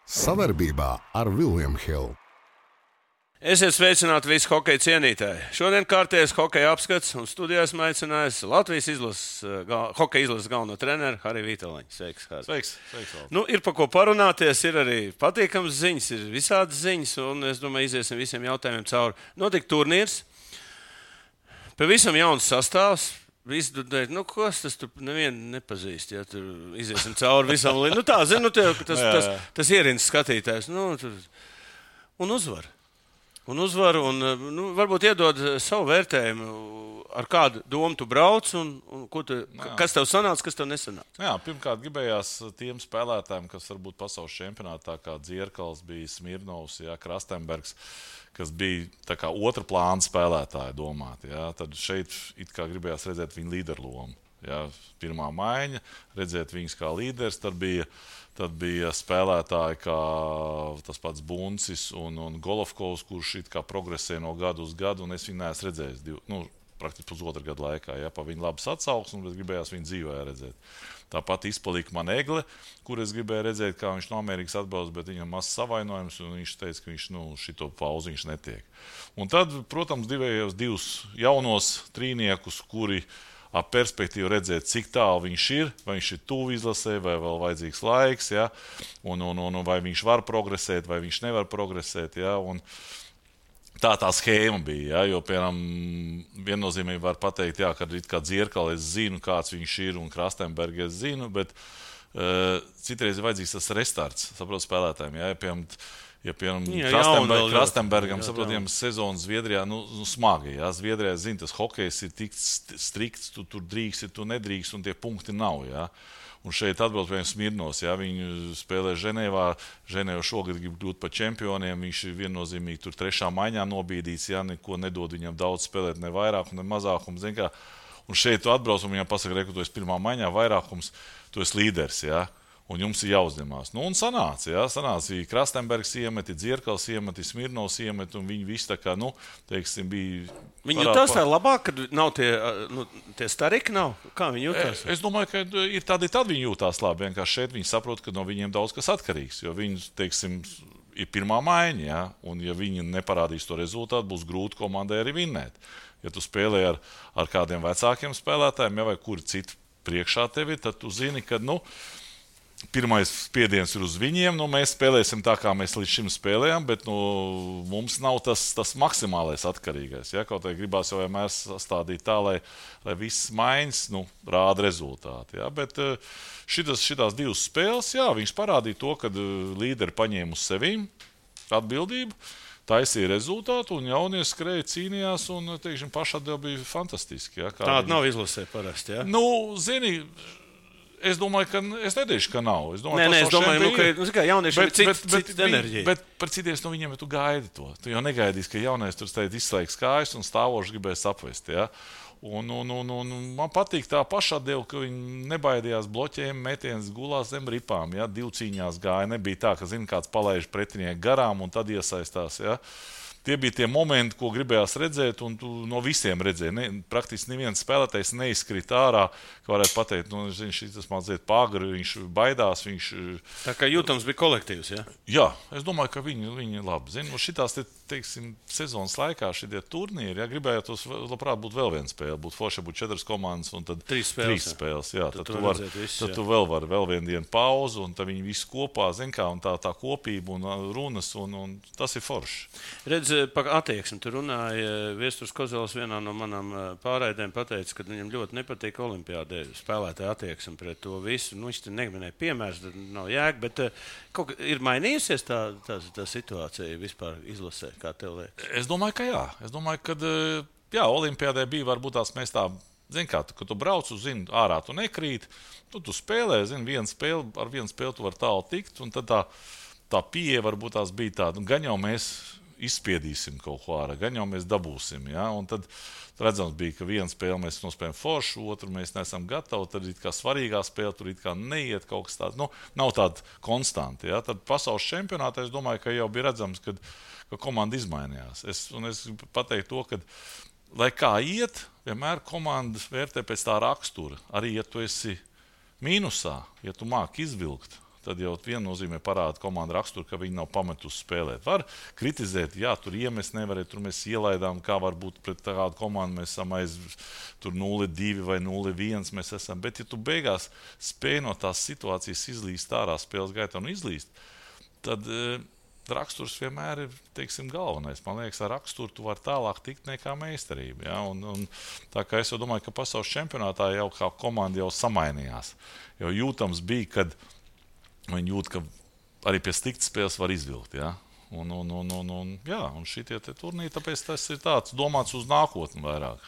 Savarbībā ar William Hill. Esiet sveicināti visi hokeja cienītāji. Šodien kārtējais hokeja apskats un studijās aicinājis Latvijas hokeja izlases galveno treneru Hariju Vītoliņu. Sveiks, Harij. Sveiks. Ir par ko parunāties, ir arī patīkams ziņas, ir visādas ziņas, un es domāju, iziesim visiem jautājumiem cauri. Notika turnīrs, pavisam jauns sastāvs. Visi tur teica, kas tas tur nevienu nepazīst, ja tur iziesim cauri visam. Tā, zinu, tas ierins skatītājs. Un uzvar. Un varbūt iedod savu vērtējumu, ar kādu domu tu brauc un kas tev sanāca, kas tev nesanāca. Jā, pirmkārt, gribējās tiem spēlētājiem, kas varbūt pasaules čempionātā, kā Dzierkals, bija Smirnovs, Krastenbergs, kas bija tā kā otra plāna spēlētāji domāti. Tad šeit it kā gribējās redzēt viņu līderu lomu. Pirmā maiņa, redzēt viņus kā līderis, tad bija spēlētāji kā tas pats Buncis un Golovkovs, kurš it kā progresē no gadu uz gadu, un es viņu neesmu redzējis praktiski pusotru gadu laikā. Pa viņu labas atsauksmes, bet gribējās viņu dzīvē redzēt. Tāpat izpalika man Egle, kur es gribēju redzēt, kā viņš no Amerikas atbrauc, bet viņam mazs savainojums, un viņš teica, ka viņš šito pauzi viņš netiek. Un tad, protams, divus jaunos trīniekus, kuri ap perspektīvu redzēt, cik tālu viņš ir, vai viņš ir tuvu izlasē, vai vēl vajadzīgs laiks, un vai viņš var progresēt, vai viņš nevar progresēt. Un tā schēma bija, jo, piemēram, viennozīmīgi var pateikt, ka it kā Dzierkali es zinu, kāds viņš ir, un Krastenbergu es zinu, bet citreiz ir vajadzīgs tas restarts, saprot, spēlētājiem. Piemēram, Krastenbergam, saprotiem, sezonas Zviedrijā, smagi. Zviedrijā, zinu, tas hokejs ir tik strikts, tu tur drīkst, tu nedrīkst, un tie punkti nav, Un šeit atbrauc pie Smirnovs, viņu spēlē Ženēvā. Ženēva šogad grib kļūt par čempioniem. Viņš ir viennozīmīgi tur trešā maiņā nobīdīts, neko nedod viņam daudz spēlēt, ne vairākumu, ne mazākumu. Un šeit tu atbrauc un viņam pasaka, tu esi pirmā maiņā, vairākums, tu esi līderis, un jums ir jāuzņemās. Un sanāca, Krastenbergs iemet, Dzierkals iemet, Smirnovs iemet, un viņi visi tā kā, bija... Viņi jutās tā labāk, kad nav tie stariki nav? Kā viņi jutās? Es domāju, ka ir tad viņi jutās labi. Vienkārši šeit viņi saprot, ka no viņiem daudz kas atkarīgs, jo viņi, ir pirmā maiņa, un ja viņi neparādīs to rezultātu, būs grūti komandai arī vinnēt. Ja tu spēlē ar kādiem vecākiem spēlētājiem, vai kuri citi priekšā tevi, tad tu zini, ka, pirmais spiediens ir uz viņiem. Mēs spēlēsim tā, kā mēs līdz šim spēlējam, bet mums nav tas maksimālais atkarīgais. Kaut arī gribās jau vienmēr sastādīt tā, lai viss maiņas rāda rezultātu. Bet šitās divas spēles, viņš parādīja to, ka līderi paņēma uz sevīm atbildību, taisīja rezultātu, un jaunie skrēja, cīnījās, un, pašatdeva bija fantastiski. Tāda nav izlasē parasti, Zini, es domāju, ka es nedēļu, ka nav. Es domāju, ka jauniešiem ir cita enerģija. Bet par citiem no viņiem tu gaidi to. Tu jau negaidīsi, ka jaunais tur izslēgs kājas un stāvoši gribēs apvest. Un man patīk tā pašatdeva, ka viņi nebaidījās bloķējumu, metiens gulās zem ripām. Divu cīņās gāja. Nebija tā, ka kāds palaiž pretinieku garām un tad iesaistās. Tie bija tie momenti, ko gribējās redzēt, un tu no visiem redzēji. Praktiski neviens spēlētājs neizkrita ārā, ka varētu pateikt, šis mazliet pagri, viņš baidās. Tā kā jūtams bija kolektīvs, Jā, es domāju, ka viņi labi zina. Šitās, sezonas laikā šitie turnīri, gribējātos labprāt būt vēl viena spēle. Būtu forši, būtu 4 komandas un tad 3 spēles. Tad tu vēl vari vēl vienu dienu pauzu, un tad viņi visi kopā, un tā kopība un runas, un tas ir forši. Redz, par attieksmi. Tu runāji, Viesturs Kozels vienā no manām pārraidēm pateica, ka viņam ļoti nepatīk olimpiādē spēlētāja attieksme pret to visu. Viņš te neminēja piemērs, tad nav jēga, bet ir mainījusies tā situācija vispār izlasē, kā tev liekas? Es domāju, ka jā. Es domāju, ka olimpiādē bija varbūt tās mēs tā, kad tu brauc uz ārā, tu nekrīt, tu spēlē, ar vienu spēli tu var tālu tikt, un tad tā pieeja varbūt tās bija tāda, gan jau mēs izspiedīsim kaut ko ārā, gan jau mēs dabūsim. Un tad redzams bija, ka viena spēle mēs nospējam foršu, otru mēs neesam gatavi, tad it kā svarīgā spēle tur it kā neiet kaut kas tāds. Nav tāda konstanti. Tad pasaules čempionātā es domāju, ka jau bija redzams, ka komanda izmainījās. Es pateiktu to, ka, lai kā iet, vienmēr komanda vērtē pēc tā rakstura. Arī, ja tu esi mīnusā, ja tu māki izvilkt, tad jau viennozīmē parāda komanda raksturu, ka viņi nav pametusi spēlēt. Var kritizēt, jā, tur iemest nevarēja, tur mēs ielaidām, kā var būt pret tādu komandu, mēs esam aiz tur 0-2 vai 0-1 mēs esam. Bet ja tu beigās spēj no tās situācijas izlīst ārā spēles gaitā un izlīst, tad raksturs vienmēr ir, teiksim, galvenais. Man liekas, ar raksturu tu vari tālāk tikt nekā meistarība. Ja? Un tā kā es jau domāju, ka pasaules čempionātā jau kā komanda jau samainījās. Jo jūtams bija, kad viņi jūt, ka arī pie sliktas spēles var izvilkt. Ja? Un šitie turnīri, tāpēc tas ir tāds domāts uz nākotni vairāk.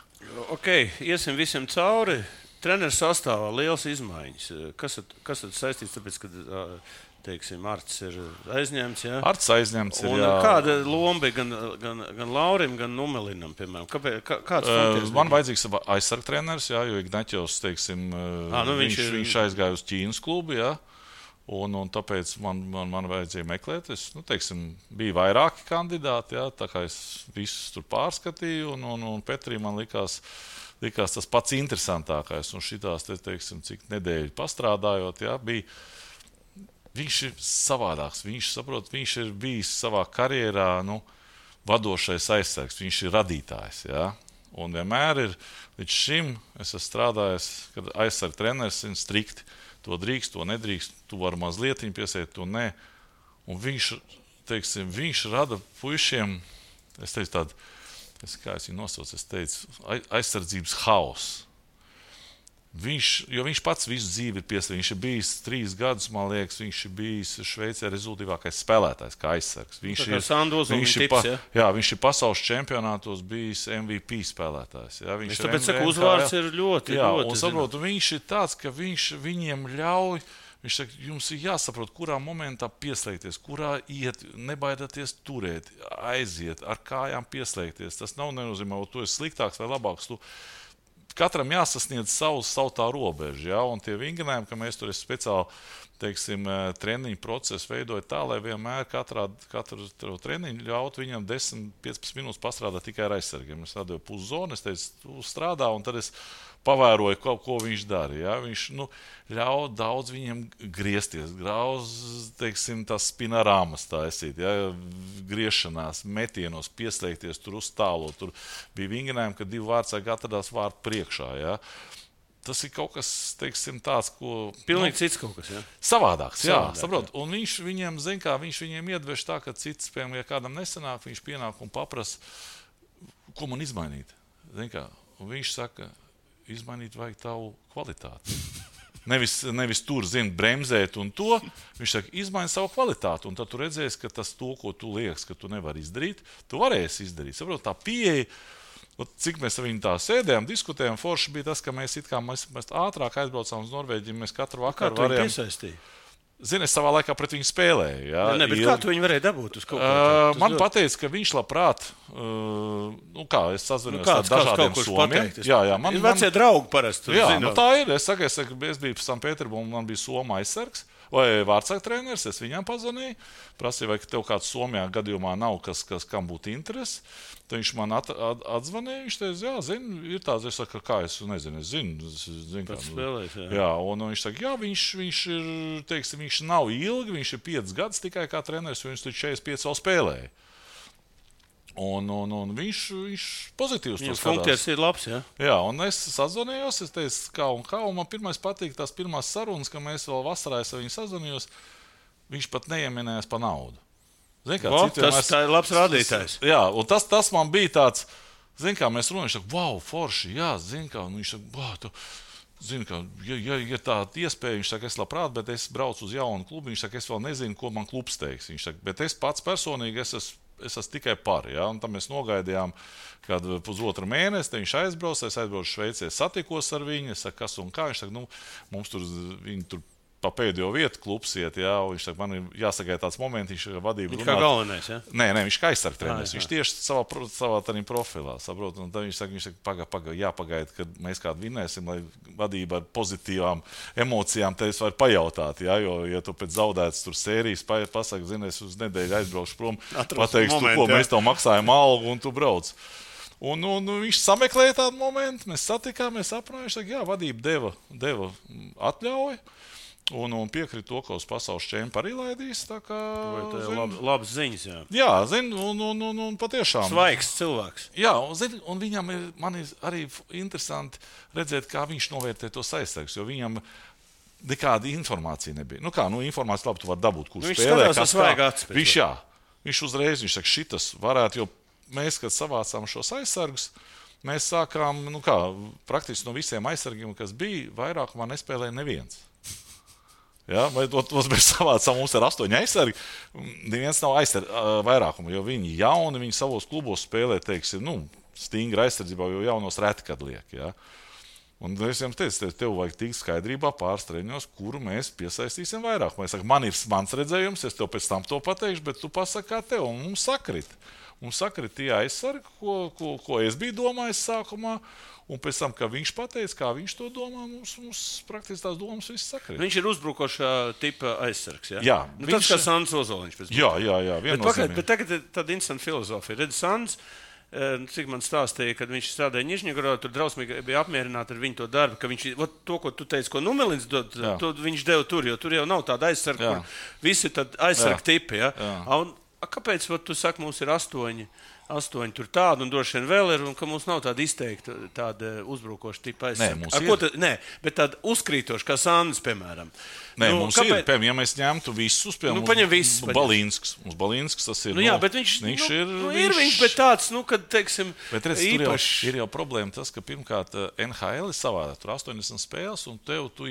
Ok, iesim visiem cauri. Treneris sastāvā liels izmaiņas. Kas tad saistīts, tāpēc, kad teiksim, Arts ir aizņemts. Ja? Arts aizņemts ir. Kāda loma bija gan Laurim, gan Numelinam, piemēram? Kāds funkcijas? Man vajadzīgs aizsarg treneris, jo Ignaķos, teiksim, viņš aizgāja uz Ķīnas klubu, ja? Un tāpēc man vajadzēja meklēt. Bija vairāki kandidāti, ja? Tā kā es visus tur pārskatīju, un Petrī man likās tas pats interesantākais. Un šitās, teiksim, cik nedēļu pastrādājot, ja? Viņš ir savādāks. Viņš ir bijis savā karjerā vadošais aizsargs. Viņš ir radītājs. Ja? Un vienmēr ir līdz šim es esmu strādājis, kad aizsarga treneris ir strikti. To drīkst, to nedrīkst. Tu vari mazliet piesēt, to nē. Un viņš rada puišiem, es teicu tādu, kā es viņu nosaucu, aizsardzības haosu. Jo viņš pats visu dzīvi ir pieslēgts. Viņš ir bijis 3 gadus, man liekas, viņš ir bijis Šveicē rezultātīvākais spēlētājs, kā aizsargs. Viņš ir pasaules čempionātos bijis MVP spēlētājs. Ja? Tāpēc uzvārds ir ļoti. Viņš ir tāds, ka viņš viņiem ļauj. Viņš saka, jums ir jāsaprot, kurā momentā pieslēgties, kurā iet, nebaidieties turēt, aiziet, ar kājām pieslēgties. Tas nav nenozīmē, ka tu esi sliktāks vai labāks. Katram jāsasniedz savu tā robežu, ja? Un tie vingrinājumi, ka mēs tur speciāli, teiksim, treniņu procesu veidojam tā, lai vienmēr katru treniņu ļaut viņam 10-15 minūtes pastrādāt tikai ar aizsargiem. Es atdevu puszonu, es teicu, tu strādā, un tad es pavēroju, ko viņš dara. Ja? Viņš ļauj daudz viņiem griezties, teiksim, tās spinarāmas tā esīt, ja? Griešanās, metienos, pieslēgties, tur uz tālo. Tur bija vingrinājumi, ka 2 vārdsargi atradās vārtu priekšā. Ja? Tas ir kaut kas, teiksim, tāds, ko... Pilnīgi cits kaut kas, ja? Savādāks, jā, saprot. Un viņš viņiem iedveš tā, ka cits, piemēram, ja kādam nesanāk, viņš pienāk un paprasa, ko man izmainīt. Un viņš saka, izmainīt vajag tavu kvalitāti. Nevis tur, bremzēt un to. Viņš saka, izmaini savu kvalitāti. Un tad tu redzēsi, ka tas to, ko tu liekas, ka tu nevari izdarīt, tu varēsi izdarīt. Saprot, tā pieeja, cik mēs ar viņu tā sēdējām, diskutējām, forši bija tas, ka mēs ātrāk aizbraucām uz Norvēģiju, mēs katru vakaru varējām. Kā tu piesaistīji? Zini, es savā laikā pret viņu spēlēju. Ja? Bet kā tu viņu varēji dabūt uz kaut ko? Man pateica, ka viņš labprāt, es sazvanījos ar dažādiem somiem. Ir vecie draugi parasti. Tā ir. Es biju Sanktpēterburgā, man bija Soma aizsargs vai vārdsarga treneris, es viņam pazvanīju, prasīju, vai tev kāds Somijā gadījumā nav, kam būtu interesi. Tad viņš man atzvanīja, viņš teica, ir tāds, es saku, kā es nezinu, un viņš saka, viņš ir, teiksim, viņš nav ilgi, viņš ir 5 gadus tikai kā treneris, viņš tur 45 vēl spēlēja. Un viņš pozitīvs to skatās. Funkcijas ir labs, ja? Jā, un es sazvanījos, es teicu, un man pirmais patīk tās pirmās sarunas, ka mēs vēl vasarā ar viņu sazvanījos, viņš pat neieminējās par naudu. Tā ir labs rādītājs. Jā, un tas man bija tāds, mēs runājam, viņš saka, wow, forši, jā, un viņš saka, ja tāda iespēja, viņš saka, es labprāt, bet es braucu uz jaunu klubu, viņš saka, es vēl nezinu, ko man klubs teiks. Viņš saka, bet es pats personīgi, es esmu tikai par, ja, un tam mēs nogaidījām kādu pusotru mēnesi, tad viņš aizbraucu Šveicē, satikos ar viņu, es saku, kas un kā, viņš saka, mums tur, viņi tur pa pēdējo vietu klubs iet, jā, un viņš saka, man ir jāsagaida tāds moments, viņš vadību runāt. Viņš kā galvenais, ja? Nē, viņš kā aizsarg treneris, viņš tieši savā tādā profilā, saprot, un tad viņš saka, jāpagaida, kad mēs kādu vinēsim, lai vadība ar pozitīvām emocijām tevis var pajautāt, jā, jo, ja tu pēc zaudētas tur sērijas pasaka, zini, es uz nedēļu aizbraukšu prom, pateikšu, mēs tev maksājam algu un tu brauc. Un viņš sameklēja tādu momentu, mēs satikām, mēs aprunājām, viņš saka, jā, vadība deva atļauju. Un piekrīt to, ka uz pasaules čempionu arī laidīs. Tā kā labas ziņas, jā. Jā, un patiešām. Svaigs cilvēks. Jā, un viņam man ir arī interesanti redzēt, kā viņš novērtē tos aizsargus, jo viņam nekāda informācija nebija. Informācija labi, tu vari dabūt, kurš spēlē. Viņš uzreiz, viņš saka, šitas varētu, jo mēs, kad savācām šos aizsargus, mēs sākām, praktiski no visiem aizsargiem, kas bija, vairākumā nespēlēja neviens. Ja, vai tos mēs savācām, mums ir 8 aizsargi, neviens nav vairākumu, jo viņi jauni, viņi savos klubos spēlē, teiksim, stingri aizsardzībā, jo jaunos reti, kad liek, ja. Un es jums teicu, tev vajag tikt skaidrībā pāris treniņos, kuru mēs piesaistīsim vairākumu. Es saku, man ir mans redzējums, es tev pēc tam to pateikšu, bet tu pasaki, kā tev, un mums sakrit. Mums sakrit tie aizsargi, ko es biju domājis sākumā, un pēc tam, kā viņš pateica, kā viņš to domā, mums praktiski tās domas viss sakrīt. Viņš ir uzbrukošā tipa aizsargs, ja? Jā. Tas kā Sandis Ozoliņš. Jā. Bet tagad ir tāda interesanta filozofija. Redz, Sandis, cik man stāstīja, kad viņš strādāja Nižņagorodā, tur drausmīgi bija apmierināti ar viņu to darbu, ka viņš, to, ko tu teici, ko Numelins dod, to viņš deva tur, jo tur jau nav tāda aizsarga, kur visi tad aizsarga tipi, ja? Kāpēc tu saki, mums ir 8 tur tādu, un droši vien vēl ir, un ka mums nav tāda izteikta, tāda uzbrukoša tipa aizsarga? Nē, bet tāda uzkrītoša, kā Sandis, piemēram. Nē, mums ir, piemēram, ja mēs ņemtu visus, piemēram, Balīnsks. Mums Balīnsks tas ir, bet viņš ir viņš, bet tāds, kad, teiksim, bet redz, īpašs. Ir jau problēma tas, ka pirmkārt NHL ir savādāk, tur 80 spēles, un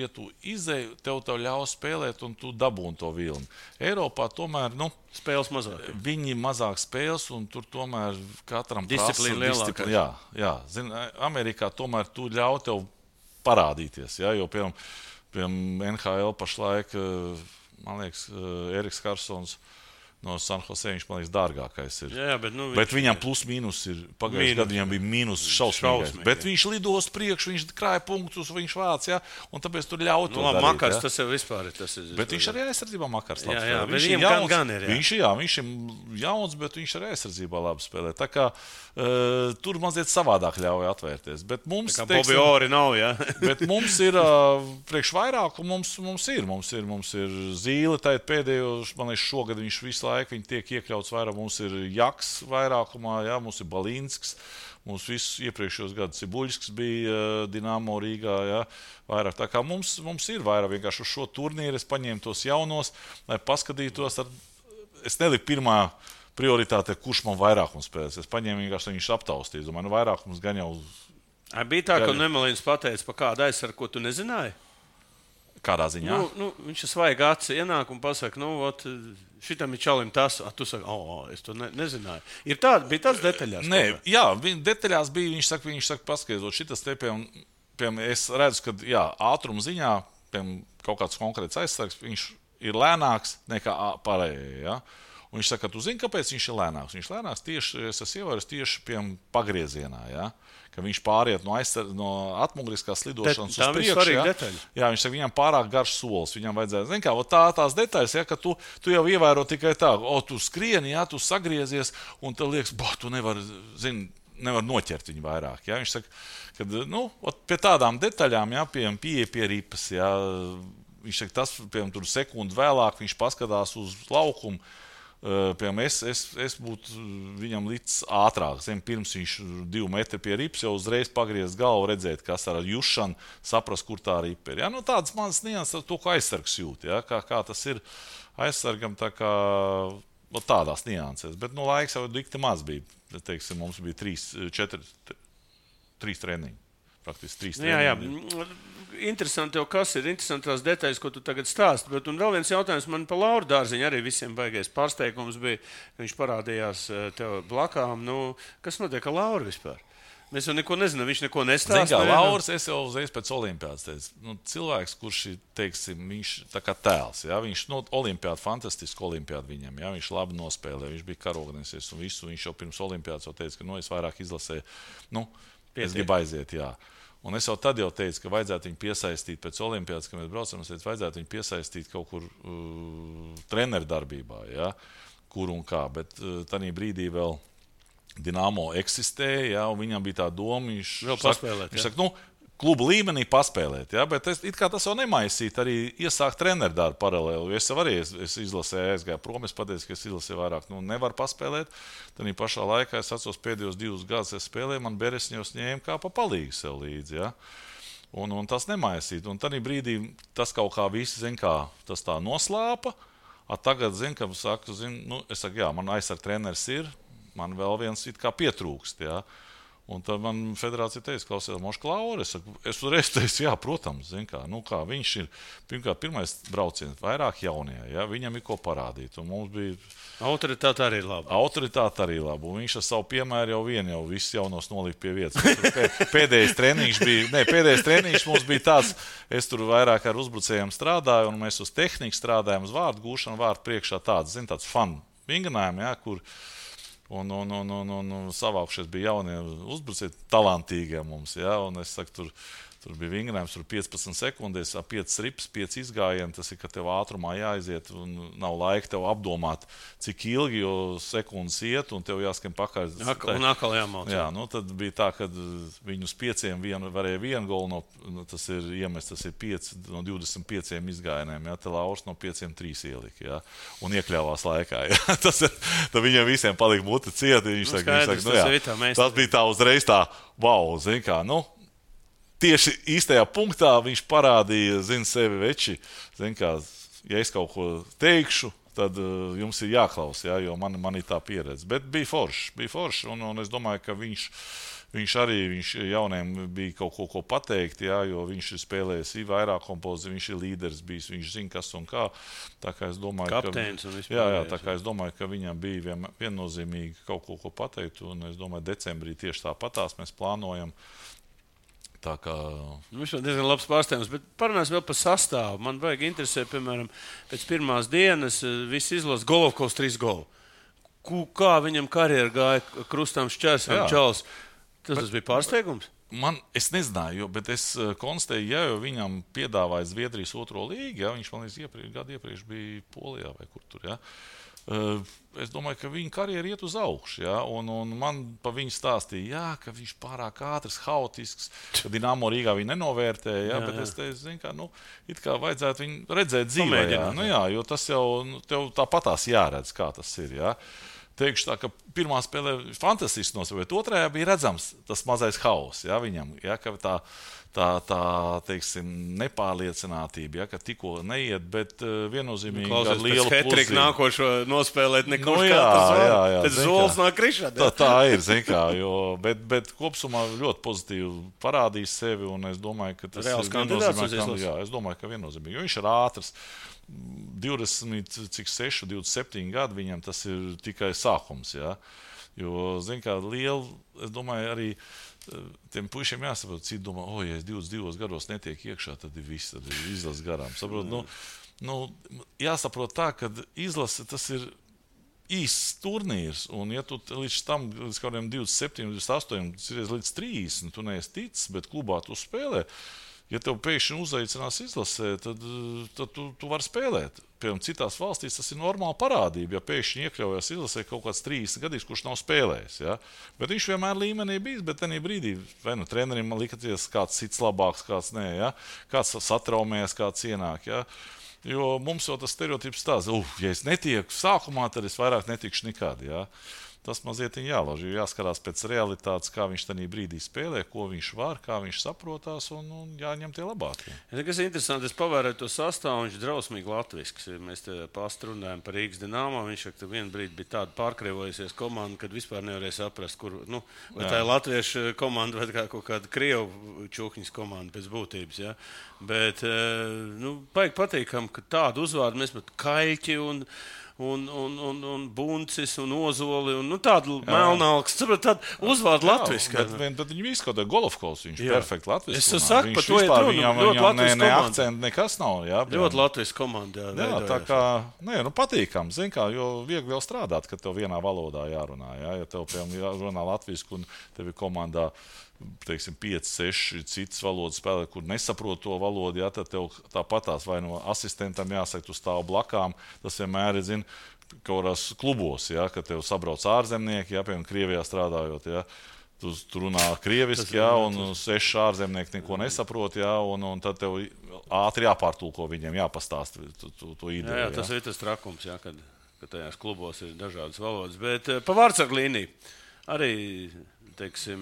ja tu izēji, tev ļaus spēlēt, un tu dabūni to vilni. Eiropā tomēr, spēles mazāk. Viņi mazāk spēles, un tur tomēr katram disciplīna lielākā. Jā. Zini, Amerikā tomēr tu ļauj tev parādīties, ja, jo, piemēram, NHL pašlaik, man liekas, Eriks Karsons no San Jose, viņš, man liekas, dārgākais ir. Jā, bet viņam plus mīnus ir, pagājušajā gadā viņam bija mīnus šausmīgais. Bet viņš lidos priekš, viņš krāja punktus, viņš vāc, ja, un tāpēc tur ļauj to darīt. Makars, tas jau vispār ir. Bet viņš arī aizsardzībā Makars labi spēlē. Jā, bet viņam gan ir. Viņš ir jauns, bet viņš arī aizsardzībā labi spēlē. Tā kā tur mazliet savādāk ļauj atvērties. Bet mums, tā kā Bobby Orri nav, jā. Bet mums ir priekš vairāk, un mums ir Zīle, tā ir pēdējos, man liekas, šogad viņš visu laiku viņi tiek iekļauts vairāk. Mums ir Jaks vairākumā, jā, mums ir Balīnsks, mums visus iepriekšējos gadus Cibuļskis bija Dinamo Rīgā, jā, vairāk. Tā kā mums ir vairāk vienkārši uz šo turnīru, es paņēmu tos jaunos, lai paskatītos. Es neliku pirmā prioritāte, kurš man vairākums spēlēs. Es paņēmu vienkārši, lai viņš aptaustīja. Es domāju, vairākums gan jau. Bija tā, ka Nemelīns pateica, pa kādu aizsargu, ko tu nezināji? Kādā ziņā? Viņš ir svaigi acis ienāk un pasaka, šitam ir čalim tas, tu saki, es to nezināju. Bija tāds detaļās? Nē, jā, detaļās bija, viņš saka, paskaidrot, šitas te, piemēram, es redzu, ka, jā, ātruma ziņā, piemēram, kaut kāds konkrēts aizsargs, viņš ir lēnāks nekā pārējie, jā. Un viņš saka, tu zini, kāpēc viņš ir lēnāks? Viņš ir lēnāks tieši, es esmu ievērojis tieši, piemēram, pagriezienā, jā. Ka viņš pāriet no atmuguriskās lidošanas uz priekšu. Jā, viņš saka, viņam pārāk garš solis. Viņam vajadzētu, zini kā, tās detaļas, ja, ka tu jau ievēro tikai tā, tu skrieni, jā, tu sagriezies, un tev liekas, tu nevar noķert viņu vairāk. Jā. Viņš saka, ka, pie tādām detaļām, jā, pieeja pie ripas, jā, viņš saka, tas, piemēram, tur sekundi vēlāk, viņš paskatās uz laukumu. Piemēram, es būtu viņam līdz ātrāk. Pirms viņš 2 metri pie rips jau uzreiz pagriezts galvu, redzēt, kas ar jušanu, saprast, kur tā ripa ir. Ja? Tādas manas nianses, to, ko aizsargs jūt. Ja? Kā tas ir aizsargam, tā kā tādās nianses. Bet laiks jau dikti maz bija. Teiksim, mums bija 3 treniņi. Praktiski 3 treniņi. Jā. Interesanti jau, kas ir interesantās detaļas, ko tu tagad stāsti. Bet un vēl viens jautājums man par Lauru Dārziņu arī visiem baigais pārsteigums bija, ka viņš parādījās tev blakām. Kas notiek ar Lauru vispār? Mēs jau neko nezinām, viņš neko nestāsta. Zin kā, Lauris, es jau uzreiz pēc olimpiādas teicu, cilvēks, kurš ir, teiksim, viņš tā kā tēls, jā, viņš olimpiāda, fantastiski olimpiāda viņam, jā, viņš labi nospēlē, viņš bija karognieks un visu, viņš jau pirms olimpiādas jau teica, ka, es vairāk izlasēju, es gribu aiziet, jā. Un es jau tad teicu, ka vajadzētu viņu piesaistīt pēc olimpiādas, kad mēs braucam, es teicu, vajadzētu viņu piesaistīt kaut kur treneru darbībā, ja, kur un kā, bet tādā brīdī vēl Dinamo eksistēja, ja, un viņam bija tā doma, viņš saka, klubu līmenī paspēlēt. Ja? Bet it kā tas jau nemaisīt, arī iesākt treneru darbu paralēli. Es jau arī izlasēju, aizgāju prom, es pateicu, ka es izlasēju vairāk. Nevar paspēlēt. Tad pašā laikā es atceros pēdējos 2 gadus es spēlēju, man Beresņos ņēma kā pa palīgu sev līdzi. Ja? Un tas nemaisīt. Un tad brīdī tas kaut kā visi, tas tā noslāpa. Tagad, ka saku, es saku, jā, man aizsarg treneris ir, man vēl viens it kā pietrūkst, jā. Un tad man federācija teica, klausies, Moška Laura, es uzreiz teicu, jā, protams, kā viņš ir, pirmkārt, pirmais brauciens, vairāk jaunie, jā, viņam ir ko parādīt, un mums bija... Autoritāte arī ir laba. Autoritāte arī laba, un viņš ar savu piemēru jau visus jaunos nolika pie vietas. Pēdējais treniņš mums bija tāds, es tur vairāk ar uzbrucējiem strādāju, un mēs uz tehniku strādājām, uz vārdu gūšanu, vārdu priekšā tāds fun vingrinājumi, jā, kur... Un savākušies bija jaunie uzbrucēji, talantīgie mums. Ja? Un es saku, tur bija vingrinājums, tur 15 sekundēs, 5 rips, 5 izgājieni. Tas ir, ka tev ātrumā jāaiziet un nav laika tev apdomāt, cik ilgi, jo sekundes iet un tev jāskan pakaļ. Un atkal jāmauc. Jā, tad bija tā, ka viņus 5 varēja 1 golu, tas ir iemest, tas ir 5 no 25 izgājieniem. Ja? Te Lauris no 5 3 ielika. Ja? Un iekļāvās laikā. Ja? Tad viņiem visiem palika muti cieti. Tas bija tā uzreiz tā, wow, tieši īstajā punktā viņš parādīja, sevi veči. Ja es kaut ko teikšu, tad jums ir jāklaus, ja, jo man ir tā pieredze. Bet bija forši, un es domāju, ka viņš arī jauniem bija kaut ko pateikt, ja, jo viņš ir spēlējis vairāk kompozīciju, viņš ir līderis bijis, viņš zina, kas un kā. Tā kā es domāju, kapteins un vispār. Jā, tā kā es domāju, ka viņam bija viennozīmīgi kaut ko pateikt, un es domāju, decembrī tieši tāpatās mēs plānojam. Viņš ir diezgan labs pārsteigums, bet parunāsim vēl par sastāvu. Man vajag interesē, piemēram, pēc pirmās dienas visi izlasa Golovkovs 3 golu. Kā viņam karjera gāja krustām šķērsām čals? Tas bija pārsteigums? Es nezināju, bet es konstatēju, jo viņam piedāvāja Zviedrijas 2. līgu, ja, viņš man gadu iepriekš bija Polijā vai kur tur, ja. Es domāju, ka viņa karjera iet uz augšu, ja? Un man pa viņu stāstīja, jā, ka viņš pārāk ātrs, haotisks, ka Dinamo Rīgā viņu nenovērtēja, ja? Bet es teicu, it kā vajadzētu viņu redzēt dzīvē, jā, jo tas jau tev tāpatās jāredz, kā tas ir, ja? Teikšu tā, ka pirmā spēlē fantastiski nosaukt, bet otrajā bija redzams tas mazais hauss, ja, viņam, ja, ka tā teiksim, nepārliecinātība, ja, ka tikko neiet, bet viennozīmīgi ar lielu pluzību. Hetriku nākošo nospēlēt nekurš kā tas zols nāk krišā. Tā ir, bet kopsumā ļoti pozitīvi parādīs sevi, un es domāju, ka tas reāls kandidāts. Jā, es domāju, ka viennozīmīgi, jo viņš ir ātrs. 27 gadi viņam tas ir tikai sākums, ja? Jo, liela, es domāju, arī tiem puišiem jāsaprot, citi domā, ja es 22 gados netiek iekšā, tad ir viss, tad ir izlases garām. Saprot, jāsaprot tā, ka izlase tas ir īsts turnīrs, un ja tu līdz tam, līdz kādiem 27, 28, līdz 30, tu neesi ticis, bet klubā tu spēlē, ja tev pēkšņi uzaicinās izlasē, tad tu vari spēlēt. Piemēram, citās valstīs tas ir normāla parādība, ja pēkšņi iekļaujas izlasē kaut kāds 30 gadīgs, kurš nav spēlējis. Ja? Bet viņš vienmēr līmenī bijis, bet tenī brīdī vai trenerim likaties kāds cits labāks, kāds nē, ja? Kāds satraumējas, kāds ienāk. Ja? Jo mums jau tas stereotips tāds, ja es netieku sākumā, tad es vairāk netikšu nekad. Ja? Tas mazliet jālauž, jo jāskarās pēc realitātes, kā viņš tajā brīdī spēlē, ko viņš var, kā viņš saprotās, un jāņem tie labākie. Kas ir interesanti, es pavēroju to sastāvu, viņš ir drausmīgi latvisks. Mēs te pastrunājam par Rīgas Dinamo, viņš ka vienā brīdī bija tāda pārkrievojusies komanda, kad vispār nevarēja saprast, kur, vai tā ir latviešu komanda vai kaut kāda krievu čūkņas komanda pēc būtības. Ja? Bet, baigi patīkam, ka tādu uzvārdu mēs pat Kaļķi un Buncis un Ozoli un tādu melnālks. Tādu uzvārdu latviski. Bet viņi visi kaut kā Golovkovs, viņš ir perfekti latviski. Es saku, par to ir runa. Viņam ne akcenti, nekas nav. Jā, ļoti latviski komanda. Jā, tā kā, patīkam, jo viegli jau strādāt, ka tev vienā valodā jārunā. Jā? Ja tev, piemēram, runā latviski un tev ir komandā, teiksim, 5, 6 citas valodas spēlē, kur nesaprot to valodu, ja, tad tev tāpatās vai no asistentam jāsaka, tu stāv blakām. Tas vienmēr ir, kaut kādās klubos, ja, kad tev sabrauc ārzemnieki, ja, piemēram, Krievijā strādājot, ja, Tu runā krieviski, un 6 ārzemnieki neko nesaprot, un tad tev ātri jāpārtulko viņiem, jāpastāst to ideju. Jā, tas ir tas trakums, kad tajās klubos ir dažādas valodas. Bet pa vārdsargu līniju arī, teiksim,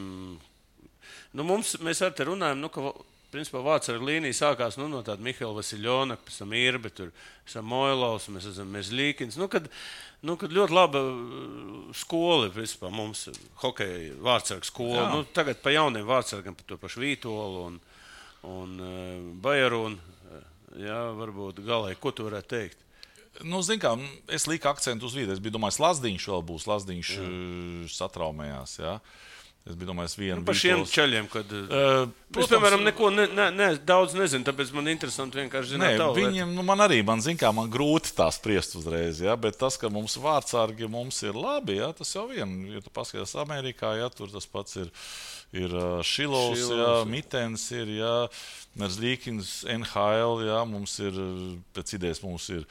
mēs ar te runājam, ka principā vārdsargu līnija sākās no tāda Mihaila Vasiljona, pēc tam Irbe, tur Samoilovs, mēs esam Mežļīkins. Kad ļoti laba skola, principā mums hokeja vārdsargu skola. Tagad pa jauniem vārdsargiem, pa to pašu Vītolu un Bajarunu. Jā, varbūt galēji, ko tu varētu teikt? Zin kā, es liku akcentu uz vīdu. Es biju domājis, Lazdiņš vēl būs. Lazdiņš satraumējās, jā. Es biju domājis vienu par šiem ceļiem, kad es, piemēram, neko daudz nezinu, tāpēc man interesanti vienkārši zināt tavu. Viņiem, man grūti tā spriest uzreiz, bet tas, ka mums vārdsargi mums ir labi, tas jau vien, ja tu paskaties Amerikā, tur tas pats ir Šilovs, Mitens ir, Merzlīkins, NHL, mums ir, pēc idejas mums ir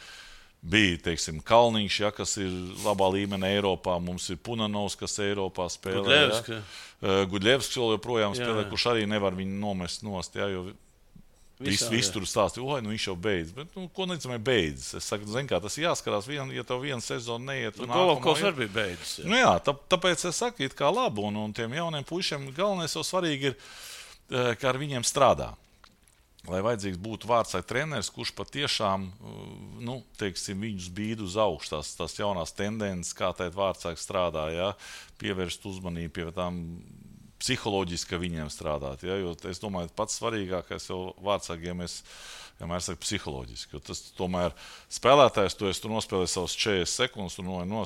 bija, teiksim, Kalniņš, kas ir labā līmenī Eiropā. Mums ir Punanovs, kas Eiropā spēlē. Gudļevskis vēl joprojām spēlē, kurš arī nevar viņu nomest nost, jo viss tur stāstīja, viņš jau beidz. Bet, ko necamē beidz? Es saku, tas jāskarās, ja tev viena sezona neiet. Golovkovs arī bija beidzis. Tāpēc es saku, it kā labu, un tiem jauniem puišiem galvenais jau svarīgi ir, kā ar viņiem strādā. Lai vajadzīgs būtu vārdsargu treneris, kurš patiešām, viņus bīd uz augšu, tās jaunās tendences, kā tēt vārdsargi strādā, pievērst uzmanību pie tām psiholoģiski, ka viņiem strādāt, jo es domāju, pats svarīgākais jau vārdsargiem vienmēr saka psiholoģiski, jo tas tomēr spēlētājs, tu nospēlēji savus 40 sekundes, tu nojas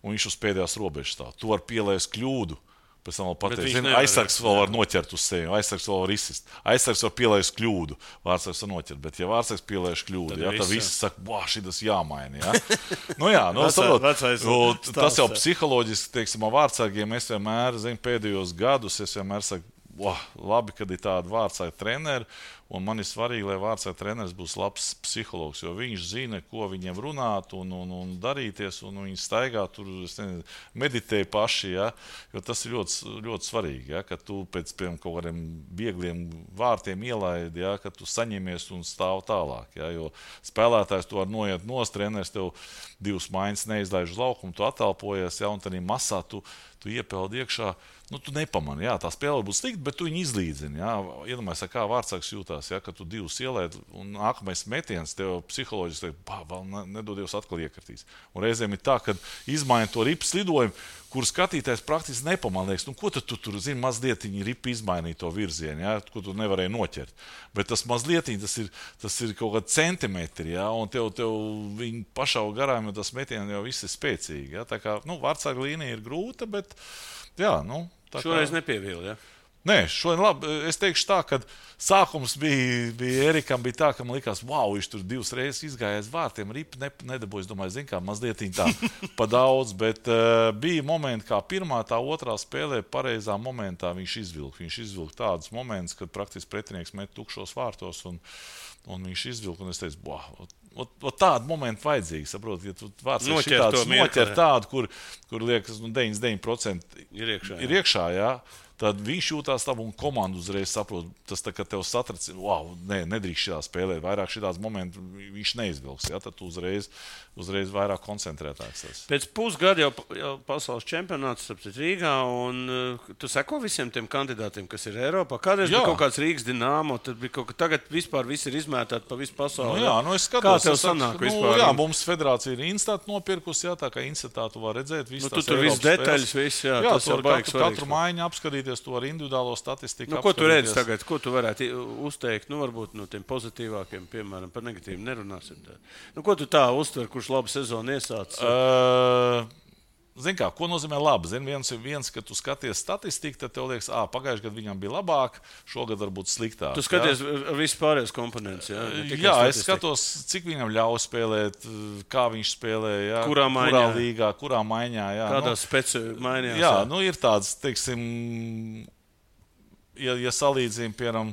viņš uz pēdējās robežas stāv. Tu var pielaist kļūdu. Pēc tam vēl pateikt, aizsargs vēl var noķert uz sevi, aizsargs vēl var izsist. Aizsargs var pielaist kļūdu, vārdsargs var noķert. Bet, ja vārdsargs pielaiž kļūdu, tad visi saka, šitas jāmaina. Tas jau psiholoģiski, teiksim, vārdsargiem es vienmēr, pēdējos gadus, es vienmēr saku, labi, kad ir tādi vārdsargu treneri, un man ir svarīgi, lai vārdsargu treneris būs labs psihologs, jo viņš zina, ko viņiem runāt un darīties, un viņi staigā tur, meditē paši, jo tas ir ļoti, ļoti svarīgi, ka tu pēc kaut kādiem viegliem vārtiem ielaidi, ka tu saņemies un stāv tālāk, jo spēlētājs tu var noiet nost, treneris tev 2 maiņas neizlaiž uz laukumu, tu atalpojies, un tad masā tu iepeldi iekšā. Tu nepamani, tā spēle būs slikta, bet tu viņu izlīdzini. Iedomājies, kā vārdsargs jūtās, ka tu 2 ielaid, un nākamais metiens tev psiholoģiski vēl nedodies atkal iekritīs. Un reizēm ir tā, ka izmaina to ripas lidojumu, kur skatītājs praktiski nepamanīgs. Ko tu tur zini, mazliet ripa izmainīja to virzienu, ko tu nevarēji noķert. Bet tas mazliet, tas ir kaut kādi centimetri, un tev viņi pašau garām, jo tas metiens jau viss ir spēcīgi. Tā kā, vārdsarga līnija ir grūta, bet, šoreiz nepievīli, Nē, šodien labi. Es teikšu tā, ka sākums bija Erikam, bija tā, ka man likās, viņš tur 2 reizes izgāja aiz vārtiem, ripa nedabūja, es domāju, mazliet tā pa daudz, bet bija momenti, kā pirmā, tā otrā spēlē pareizā momentā viņš izvilka tādus momentus, kad praktiski pretinieks met tukšos vārtos, un viņš izvilka, un es teicu, tādu momentu vajadzīgi, saprot, ja tu vārdsargs šitāds noķer tādu, kur liekas, 99% ir iekšā, tad viņš jūtās labi un komanda uzreiz saprot, tas tā, ka tev satrac, nedrīkst šitā spēlēt, vairāk šitās momentu viņš neizvilks, tad tu uzreiz vairāk koncentrētāks tas. Pēc pusgada jau pasaules čempionāts Rīgā, un tu seko visiem tiem kandidātiem, kas ir Eiropā. Kādreiz bija kaut kāds Rīgas Dinamo, tad bija kaut kā tagad vispār visi ir izmētāti pa visu pasauli. Es skatos. Kā tev sanāk vispār? Mums federācija ir Instat nopirkus, tā kā Instatā tu var redzēt visu tu tur viss detaļas, viss, tas jau baigs svarīgs. Katru maiņu apskatīties, to ar individuālo statistiku. Ko tu redzi tagad? Ko tu varētu uzteikt? Varbūt no tiem pozitīvākiem, piemēram, par negatīviem nerunāsim. Ko tu tā uztver, kurš labu sezonu iesācis? Zini kā, ko nozīmē labi? Viens, ka tu skaties statistiku, tad tev liekas, pagājušajā gadā viņam bija labāk, šogad varbūt sliktāk. Tu skaties visu pārējos komponentus, es skatos, cik viņam ļauj spēlēt, kā viņš spēlē, kurā līgā, kurā maiņā. Kādā speciālā maiņā. Ir tāds, teiksim, ja salīdzina, piemēram,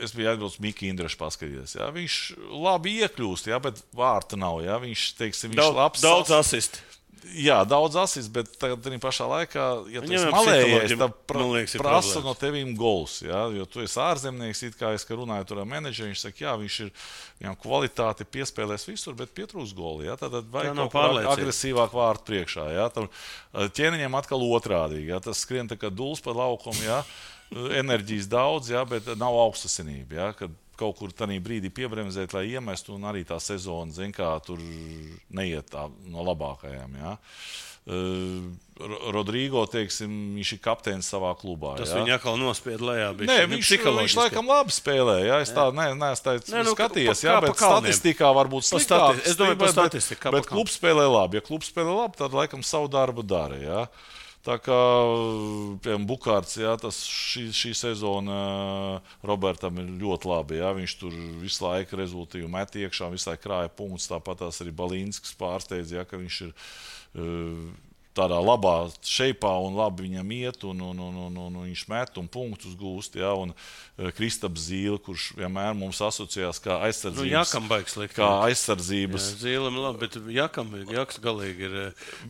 es biju atbraucis Miki Indrašu paskatīties. Viņš labi iekļūst, bet vārta nav. Viņš labs. Daudz asisti. Jā, daudz asis, bet tagad pašā laikā, ja tu esi Viņam malējies, psiholoģiem, tad man liekas, ir prasa problēmas. no tevīm gols. Ja? Jo tu esi ārzemnieks, it kā es runāju tur ar menedžeri, viņš saka, jā, viņš ir viņam kvalitāti piespēlēs visur, bet pietrūkst goli. Ja? Tad vajag nav kaut kā pārliecība. agresīvāk vārtu priekšā. Ja? Tam ķēniņam atkal otrādīgi. Ja? Tas skrien tā kā dūls pa laukumu, ja? Enerģijas daudz, ja? Bet nav augstasinība. Ja? Kad kaut kur tādā brīdī piebremzēt, lai iemestu, un arī tā sezona, zin kā, tur neiet tā no labākajām. Ja? Rodrigo, teiksim, viņš ir kapteinis savā klubā. Tas ja? viņa atkal nospied lejā. Nē, viņš laikam labi spēlē. Ja? Es tā neesmu skatījies, ja? Bet statistikā varbūt sliktāk. Es domāju, par statistiku. Bet klubs spēlē labi. Ja klubs spēlē labi, tad laikam savu darbu dara. Ja? Tā kā, piemēram, Bukārts, ja, šī sezona Robertam ir ļoti labi. Ja, viņš tur visu laiku rezultīvi met iekšā, visu laiku krāja punktus. Tāpat arī Balīnskis pārsteidz, ja, ka viņš ir tādā labā šeipā un labi viņam iet, un viņš met un punktus gūst. Ja, un Kristaps Zīle, kurš vienmēr mums asociējās kā aizsardzības. Jakam baigs likt. Kā aizsardzības. Jā, Zīlem labi, bet Jaks galīgi ir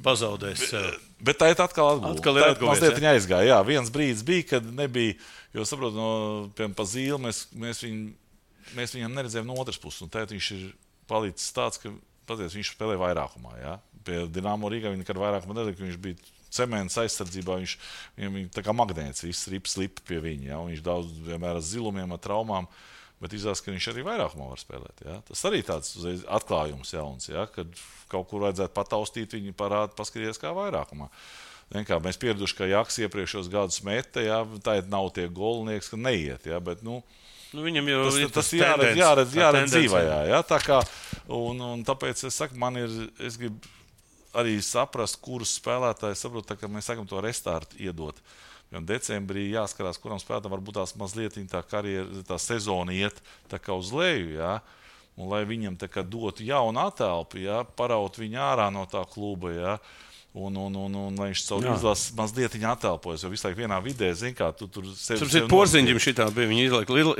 pazaudējis sev. Bet tā ir atkal atgūta. Atkal ir atgūta. Mazliet viņa aizgāja. Jā, viens brīdis bija, kad nebija, jo saprotu, piemēram, pa Zīli mēs viņam neredzējām no otras puses. Un tagad viņš ir palicis tāds, ka paties, viņš spēlē vairākumā. Ja? Pie Dinamo Rīgā viņa nekad vairākumā nedēļ, ka viņš bija cements aizsardzībā, viņam tā kā magnēts, viss slip pie viņa. Ja? Viņš daudz vienmēr ar zilumiem, ar traumām, bet izrādās, ka viņš arī vairākumā var spēlēt. Ja? Tas arī tāds atklājums jauns, ja? Kad kaut kur vajadzētu pataustīt, viņi parāda, paskatīties kā vairākumā. Kā mēs pieraduši, ka Jaks iepriekšos gadus meta, ja? Tā nav tie golnieks, ka neiet. Ja? Bet, viņam jau tas jāredz dzīvajā. Ja? Tā kā, un tāpēc es saku, es gribu arī saprast, kurus spēlētājus saprotu, ka mēs sakam to restartu iedot. Jo decembrī jāskarās, kuram spēlētājam varbūt tās mazliet tā karjera, tā sezona iet tā kā uz leju, ja? Un lai viņam tā kā dotu jaunu atelpu, ja? Paraut viņu ārā no tā kluba, ja? Un lai viņš savu izlases mazliet atelpojas, jo visu laiku vienā vidē, zin kā, tu tur sevi Porziņģim šitā bija, viņi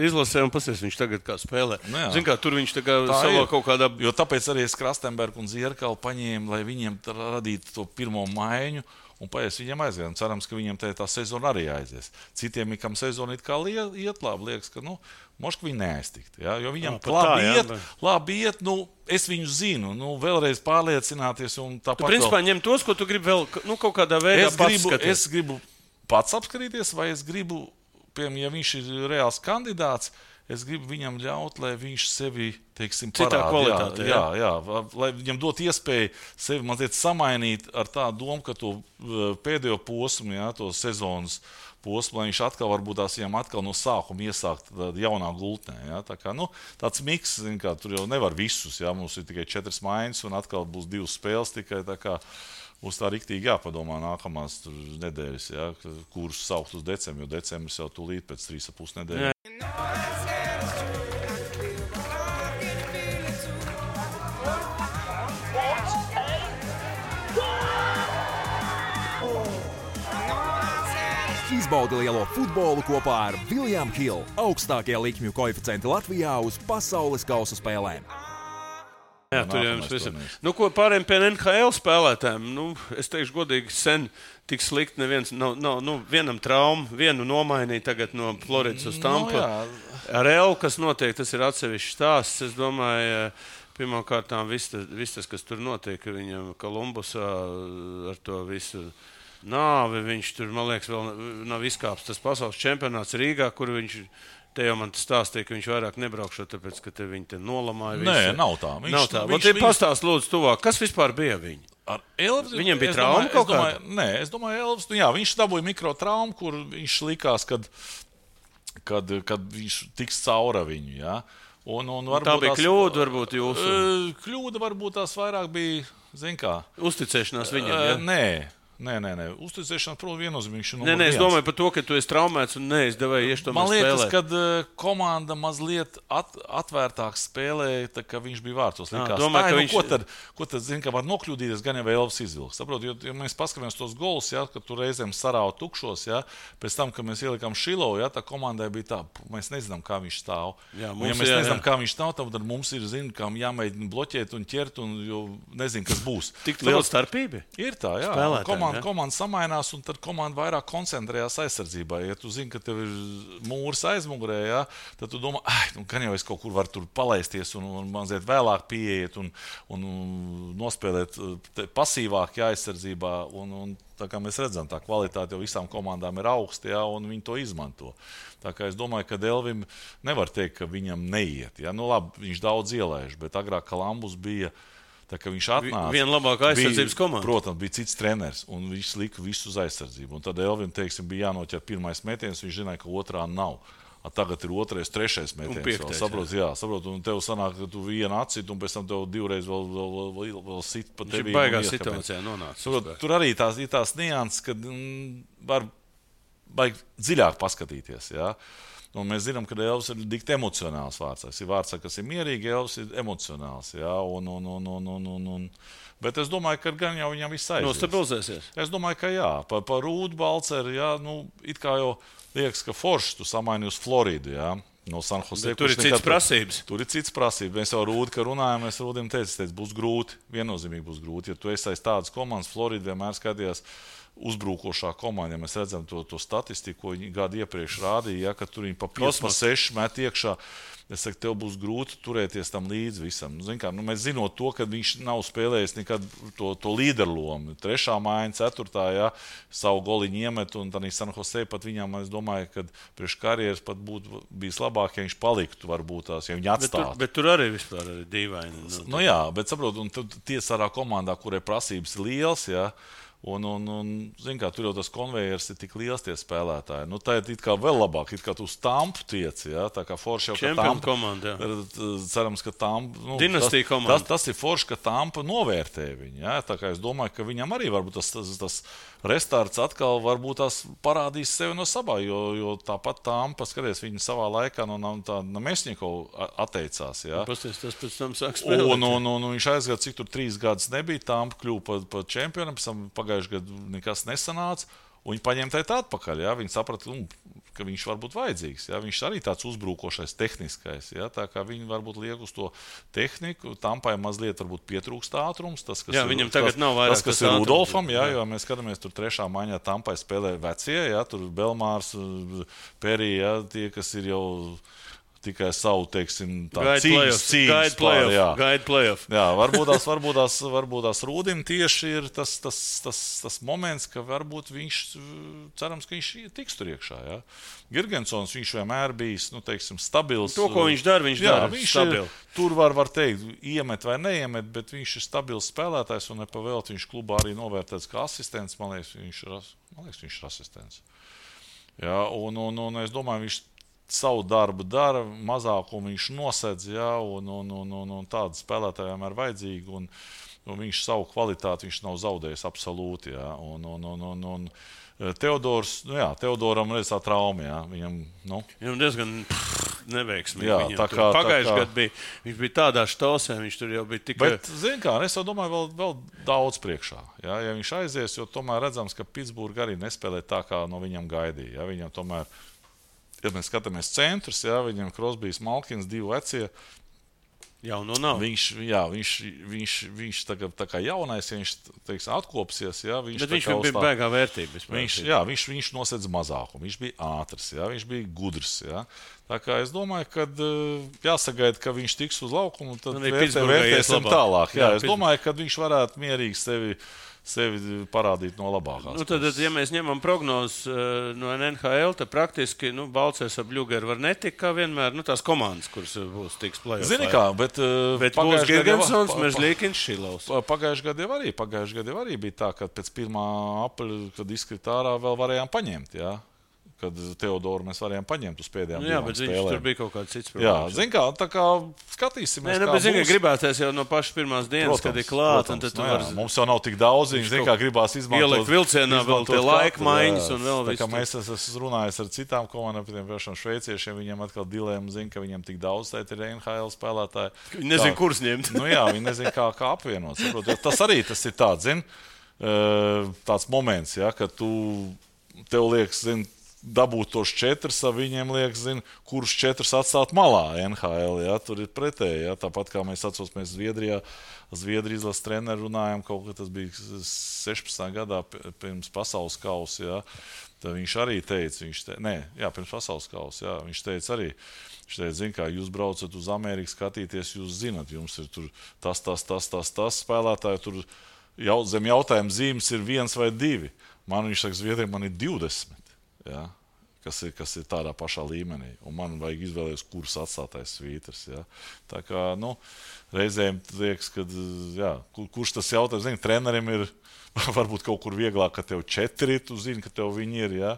izlasē un pasies, viņš tagad kā spēlē. Zin kā, tur viņš tā kā savā kaut kādā... Jo tāpēc arī es Krastenbergu un Zierkalu paņēmu, lai viņiem radītu to pirmo maiņu, un paies viņiem aiziet. Cerams, ka viņiem tā sezona arī aizies. Citiem, kam sezona it kā iet labi, liekas, ka, moška viņi neaiztikt. Ja? Jo viņam labi iet, es viņu zinu, vēlreiz pārliecināties un tāpat. Tu principā ņem tos, ko tu gribi vēl, kaut kādā veidā es gribu pats apskatīties, vai es gribu, piemēram, ja viņš ir reāls kandidāts, es gribu viņam ļaut, lai viņš sevi, teiksim, parāda. Jā, lai viņam dot iespēju sevi mazliet samainīt ar tādu domu, ka to pēdējo posmu, ja, to sezonas posmu, lai viņš atkal varbūt tās viņam atkal no sākuma iesākt jaunā gultnē. Ja. Tā kā, tāds miks, kā, tur jau nevar visus, ja, mums ir tikai 4 maiņas un atkal būs 2 spēles tikai, tā kā būs tā riktīgi jāpadomā nākamās nedēļas, ja, kurus saukt uz decembri, jo decembris jau tūlīt pēc 3,5 nedēļas. Izbaudi lielo futbolu kopā ar William Hill, augstākie likmju koeficienti Latvijā uz pasaules kausa spēlēm. Jā, tur jau jums visam. Ko pārējiem pie NHL spēlētājiem? Es teikšu godīgi, sen tik slikti neviens, vienam traumu, vienu nomainīja tagad no Floridas uz Tampu. Ar Elu, kas notiek, tas ir atsevišķs stāsts. Es domāju, pirmkārtām viss tas, kas tur notiek, viņam Kolumbusā ar to visu nāvi, viņš tur, man liekas, vēl nav izkāpis tas pasaules čempionāts Rīgā, kur viņš, te jau man stāstīja, ka viņš vairāk nebraukšot, tāpēc, ka te viņi te nolamāja visu. Nē, nav tā. Pastāst lūdzu tuvāk, kas vispār bija viņi? Ar Elvis? Viņam bija trauma kaut kāda? Nē, es domāju, Elvis, viņš dabūja mikrotraumu, kur viņš likās, kad viņš tiks caura viņu, jā. Tā bija kļūda, varbūt jūsu? Kļūda varbūt tās vairāk bija, zin kā. Uzticēšanās viņam, jā? Nē. Nē. Uzticēšana, protams, viennozīmīgi. Nē, es domāju par to, ka tu esi traumēts un neizdevēji iešu tomēr spēlēt. Man liekas, ka komanda mazliet atvērtāk spēlēja, tā kā viņš bija vārtos. Domāju, ka viņš... Ko tad zina, ka var nokļūdīties, gan jau Elvis izvilks. Saprot, jo mēs paskatāmies tos golus, ja, ka tur reizēm sarāva tukšos, ja, pēc tam, kad mēs ielikām Šilovu, ja, tā komandai bija tā, mēs nezinām, kā viņš stāv. Jā, nezinām, kā viņš stāv, tad mums ir, kā jāmēģina bloķēt un ķert, un jo nezinu, kas būs. Tik liela starpība? Ir tā, jā. Komanda samainās, un tad komanda vairāk koncentrējās aizsardzībā. Ja tu zini, ka tev ir mūrs aizmugurē, ja, tad tu domā, gan jau es kaut kur varu tur palaisties un mazliet vēlāk pieiet un nospēlēt pasīvāk aizsardzībā. Un tā kā mēs redzam, tā kvalitāte jau visām komandām ir augsta, ja, un viņi to izmanto. Tā kā es domāju, ka Elvim nevar teikt, ka viņam neiet. Ja. Nu labi, viņš daudz ielaiž, bet agrāk Kalambus bija... Tā kā viņš atnāca, viena labākā aizsardzības komanda. Protams, bija cits treneris, un viņš lika visu uz aizsardzību. Un tad Elvim, teiksim, bija jānoķer pirmais metiens, viņš zināja, ka otrā nav. Tagad ir otrais, trešais metiens. Saprot, un tev sanāk, ka tu vienu atcit, un pēc tam tev divreiz vēl sit pa tevi. Viņš baigā situācijā nonāca. Tur arī tās nianses, kad var baigi dziļāk paskatīties, jā. Un mēs zinām, ka Elvis ir dikti emocionāls vārds. Ir vārds, kas ir mierīgi, Elvis ir emocionāls. Jā, bet es domāju, ka gan jau viņam viss aizies. Nostabilizēsies? Es domāju, ka jā. Par Rūdu Balceru, jā, it kā jau liekas, ka forši tu samaini uz Floridu, jā. No San Jose. Tur ir cits prasības. Tur ir cits prasības. Mēs jau Rūdu, ka runājam, mēs Rūdim teicu, būs grūti. Viennozīmīgi būs grūti. Ja tu esi aiz tādas komandas, Florida vienmēr skatījās uzbrukošā komanda, ja mēs redzam to statistiku, ko viņi gadu iepriekš rādīja, ja, ka tur viņi pa 5, pa 6 met iekšā. Es saku, tev būs grūti turēties tam līdzi visam. Mēs zinot to, ka viņš nav spēlējis nekad to līderlomu. 3. maiņa, 4. Ja, savu goliņu iemet, un tad San Jose pat viņam, es domāju, ka priekš karjeras pat būtu bijis labāk, ja viņš paliktu, varbūt tās, ja viņi atstātu. Bet tur arī vispār ir dīvaini. Nu jā, bet saprot, un tiesārā komandā, kurai prasības ir liels, ja, un zin kā, tur jau tas konvejers ir tik liels tie spēlētāji. Nu, tā ir it kā vēl labāk, it kā tu uz Tampu tiec, ja? Tā kā forši jau, ka Tampa komanda, cerams, ka Tampa, dinastija komanda. Tas ir forši, ka Tampa novērtē viņu, ja? Tā kā es domāju, ka viņam arī varbūt tas restarts atkal varbūt tās parādīs sevi no sabā, jo tāpat Tampa, skaties, viņi savā laikā no Mesņikov atteicās, ja? Pasties, tas pēc tam sāk spēlēt. Un viņš aizgāja, cik tur 3 gadus nebija, Tampa kļuva pa čempionam, pēc tam pagājuši gadu nekas nesanāca, un viņi paņēma tā atpakaļ. Ja? Viņi saprata, ka viņš var būt vajadzīgs. Ja? Viņš arī tāds uzbrukošais, tehniskais. Ja? Tā kā viņi varbūt liek uz to tehniku, Tampai mazliet varbūt pietrūkst ātrums. Tas, kas viņam tagad nav vairāk tas, kas ir Rudolfam, ja? Jo mēs skatāmies, tur 3. maiņā Tampai spēlē vecie, ja? Tur Belmārs, Perī, ja? Tie, kas ir jau tikai savu, teiksim, cīņas playoff. Jā, varbūt tās Rūdim tieši ir tas moments, ka varbūt viņš, cerams, ka viņš tiks tur iekšā, jā. Girgensons, viņš vienmēr bijis, teiksim, stabils. To, ko viņš dara, viņš dara stabili. Tur var teikt, iemet vai neiemet, bet viņš ir stabils spēlētājs, un nepavēlt viņš klubā arī novērtēts kā asistents. Man liekas, viņš ir asistents. Jā, un es domāju, viņš savu darbu dara, mazākumu viņš nosedz, ja, un tādu spēlētāju vienmēr vajadzīgi, un viņš savu kvalitāti viņš nav zaudējis absolūti, ja, un Teodors, Teodoram redz tā trauma, ja, viņam diezgan neveiksmīgi. Jā, pagājuši gadu viņš bija tādā štosē, viņš tur jau bija tikai... Bet, zin kā, es jau domāju, vēl daudz priekšā, ja viņš aizies, jo tomēr redzams, ka Pitsburga arī nespēlē tā, kā no viņam gaidīja, ja, viņam tomēr... Ja mēs skatāmies centrus, jā, viņam Krosbijs, Malkins, 2 vecie. Jauno nav. Viņš tagad tā kā jaunais, ja viņš, teiks, atkopsies, jā, bet viņš bija baigā vērtība. Viņš nosedz mazākumu, viņš bija ātrs, jā, viņš bija gudrs, jā. Tā kā es domāju, ka jāsagaida, ka viņš tiks uz laukumu, tad vērtēsim tālāk. Jā, es domāju, ka viņš varētu mierīgi sevi parādīt no labākās. Tad, ja mēs ņemam prognozes no NHL, tad praktiski Balcers ap Ļugeru var netikt kā vienmēr, tās komandas, kuras būs tiks play-off. Zini kā, bet būs Girgensons, Merzlikins, Šilovs. Pagājuši gadu jau arī bija tā, ka pēc 1. apriļa, kad izkrita ārā, vēl varējām paņemt, jā. kad Teodoru mēs varējām paņemt uz pēdējām jā, divām bet spēlēm. Tur bija kaut kāds cits Jā, problēmas. zin kā, tā kā skatīsimies, Nē, bet zin, ka gribēties jau no pašas pirmās dienas, kad ir klāt, un tad tu vari... Mums jau nav tik daudz, zin kā gribās izmantot. Ielikt vilcienā vēl tie laika maiņas un vēl visu. Tā visu. kā mēs esam runājis ar citām komandām, piemēram, šveiciešiem, viņiem atkal dilēma zin, ka viņiem tik daudz tēt ir NHL spēlētāji. Viņi nezin, kurus ņemt. Jā, viņi nezin, kā apvienot. Saprot, tas arī tas ir tāds, zin, tāds moments, ja, ka tev liekas, zin, dabūt tos 4, viņiem liekas, kurus 4 atstāt malā NHL. Ja? Tur ir pretēji. Ja? Tāpat kā mēs atcaucamies Zviedrijas izlases treneru runājām, kaut kā tas bija 16. gadā pirms pasaules kausa. Ja? Tad viņš arī teica, pirms pasaules kausa, jā, viņš teica arī, zin kā, jūs braucat uz Ameriku skatīties, jūs zinat, jums ir tur tas spēlētāji, tur zem jautājuma zīmes ir 1 vai 2. Viņš saka, Zviedriem man ir 20. Ja, kas ir tādā pašā līmenī. Un man vajag izvēlēties, kurus atstātais svītrs. Ja. Tā kā, reizēm liekas, ka, jā, kurš tas jautājums, zini, trenerim ir varbūt kaut kur vieglāk, ka tev 4, tu zini, ka tev viņi ir, ja.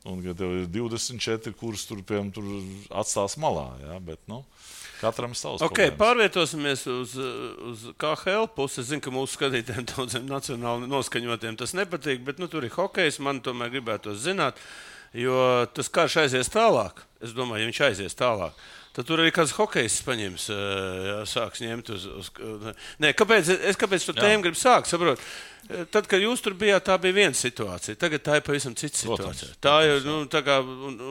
Un ka tev ir 24, kurus tur atstās malā, ja. Bet, katram savs problēmas. Pārvietosimies uz KHL pusi. Es zinu, ka mūsu skatītājiem daudziem nacionāli noskaņotiem tas nepatīk, bet tur ir hokejs, man tomēr gribētos zināt, jo tas karš aizies tālāk. Es domāju, ja viņš aizies tālāk, tad tur arī kāds hokejs paņems, sāks ņemt uz... Nē, kāpēc to tēmu gribu sākt, saprot? Tad, kad jūs tur bijāt, tā bija viena situācija. Tagad tā ir pavisam cita situācija. Tā ir, tā kā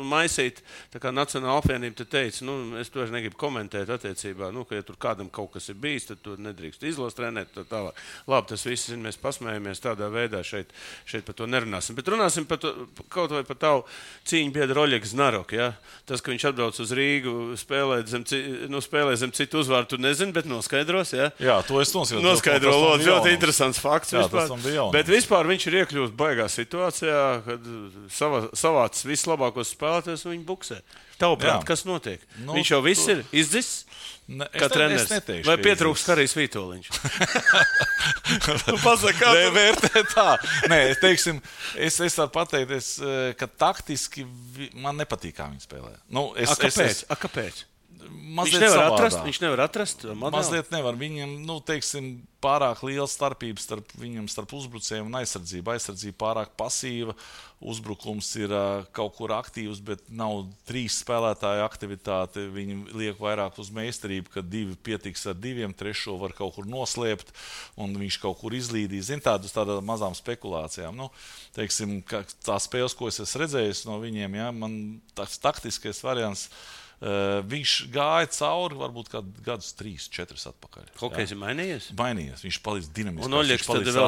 maisīt, tā kā Nacionāla apvienība te teica, es to negribu komentēt attiecībā, ka ja tur kādam kaut kas ir bijis, tad tu nedrīkst izlases trenēt, tā tālāk. Labi, tas viss, mēs pasmējamies tādā veidā, šeit par to nerunāsim. Bet runāsim par to, kaut vai par tavu cīņu biedru Oļegu Znaroku, ja? Tas, ka viņš atbrauc uz Rīgu, spēlē zem citu uzvārdu, tu nezini, bet noskaidros, ja? Jā, to es noskaidro. Ļoti interesants fakts vispār. Bet vispār viņš ir iekļūst baigā situācijā, kad savāc vislabākos spēlētājus un viņi buksē. Tavuprāt, kas notiek? Viņš jau viss ir izdzis, kā treneris. Vai pietrūkst Karijs Vītoliņš? Pasaka, kā tu vērtē tā? Nē, es varu pateikt, ka taktiski man nepatīk, kā viņi spēlē. Kāpēc? Viņš nevar atrast modeli? Mazliet nevar. Viņam, pārāk liela starpība starp uzbrucējiem un aizsardzību. Aizsardzība pārāk pasīva, uzbrukums ir kaut kur aktīvs, bet nav 3 spēlētāju aktivitāte. Viņi liek vairāk uz meistarību, ka 2 pietiks ar 2, 3 var kaut kur noslēpt, un viņš kaut kur izlīdīs. Uz tādām mazām spekulācijām. Tā spēles, ko es esmu redzējis no viņiem, ja, man tas taktiskais variants. Viņš gāja cauri varbūt gadus 3, 4 atpakaļ. Hokejs ir mainījies? Mainījies, viņš paliks dinamisks. Un Oļegs tad vēl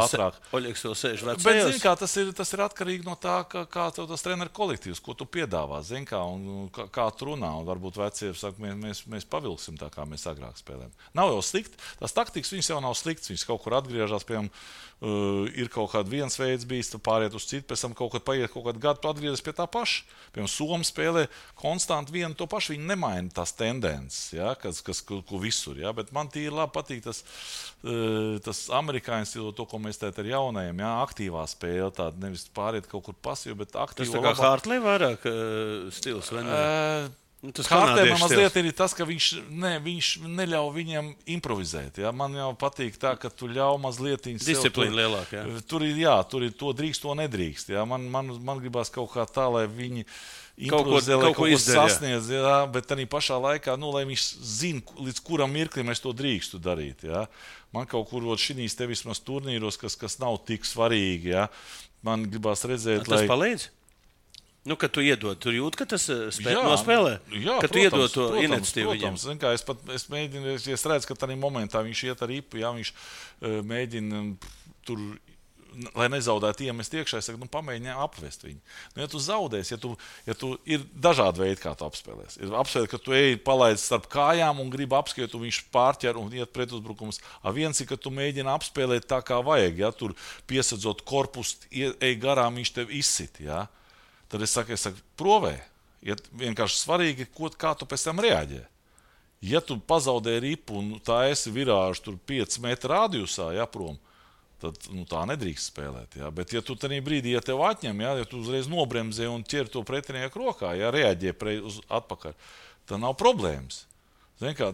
sēž vecajos? Bet, zin kā, tas ir atkarīgi no tā, kā tev tas treneru kolektīvs, ko tu piedāvā, zin kā, un kā tu runā. Un varbūt vecie saka, mēs pavilksim tā, kā mēs agrāk spēlējam. Nav jau slikti, tas taktikas viņas jau nav slikts, viņas kaut kur atgriežas, piemēram, ir kaut kāds viens veids bijis, tu pāriet uz citu, pēc tam kaut kādu gadu tu atgriezies pie tā paša. Piemēram, Somi spēlē konstanti vienu to pašu, viņi nemaina tās tendences, ja, ko visur, ja, bet man tīri labi patīk tas amerikāņu stilo, to, ko mēs tēt ar jaunajiem, ja, aktīvā spēle, tāda nevis pāriet kaut kur pasīvi, bet aktīva. Tas tā kā Hartley vairāk stils, vai ne? Hartley man mazliet ir tas, ka viņš neļauj viņam improvizēt. Ja? Man jau patīk tā, ka tu ļauj mazliet disciplīnu lielāk. Ja? Tur ir to drīkst, to nedrīkst. Ja? Man gribās kaut kā tā, lai viņi improvizē, lai kaut ko sasniedz, ja? Bet arī pašā laikā, lai viņš zina, līdz kuram mirklim es to drīkstu darīt. Ja? Man kaut kur šīs te vismaz turnīros, kas nav tik svarīgi. Ja? Man gribās redzēt, tas palīdz? Kad tu iedod, tur jūt, ka tas nospēlē? Jā, ka tu iedod to iniciatīvu viņam? Es mēģinu, es redzu, ka tādā momentā viņš iet ar ripu, ja viņš mēģina tur, lai nezaudētu iemest iekšā, es saku, pamēģini apvest viņu. Ja tu zaudēsi, ja tu ir dažādi veidi, kā tu apspēlēs. Ir apspēlēt, ka tu ej palaid starp kājām un gribi apskriet, un viņš pārķer un iet pretuzbrukums. Viens ir, ka tu mēģini apspēlēt tā, kā vajag, ja tur piesadzot korpusu, ej garām, viņš tev izsit, ja. Tad es saku, provē. Ja vienkārši svarīgi, kā tu pēc tam reaģē. Ja tu pazaudē ripu un tā esi virāžu tur 5 metru radiusā, ja, prom, tad tā nedrīkst spēlēt. Ja? Bet, ja tu tajā brīdī, ja tev atņem, ja tu uzreiz nobremzē un ķer to pretinieku rokā, ja reaģē uz atpakaļ, tad nav problēmas. Kā,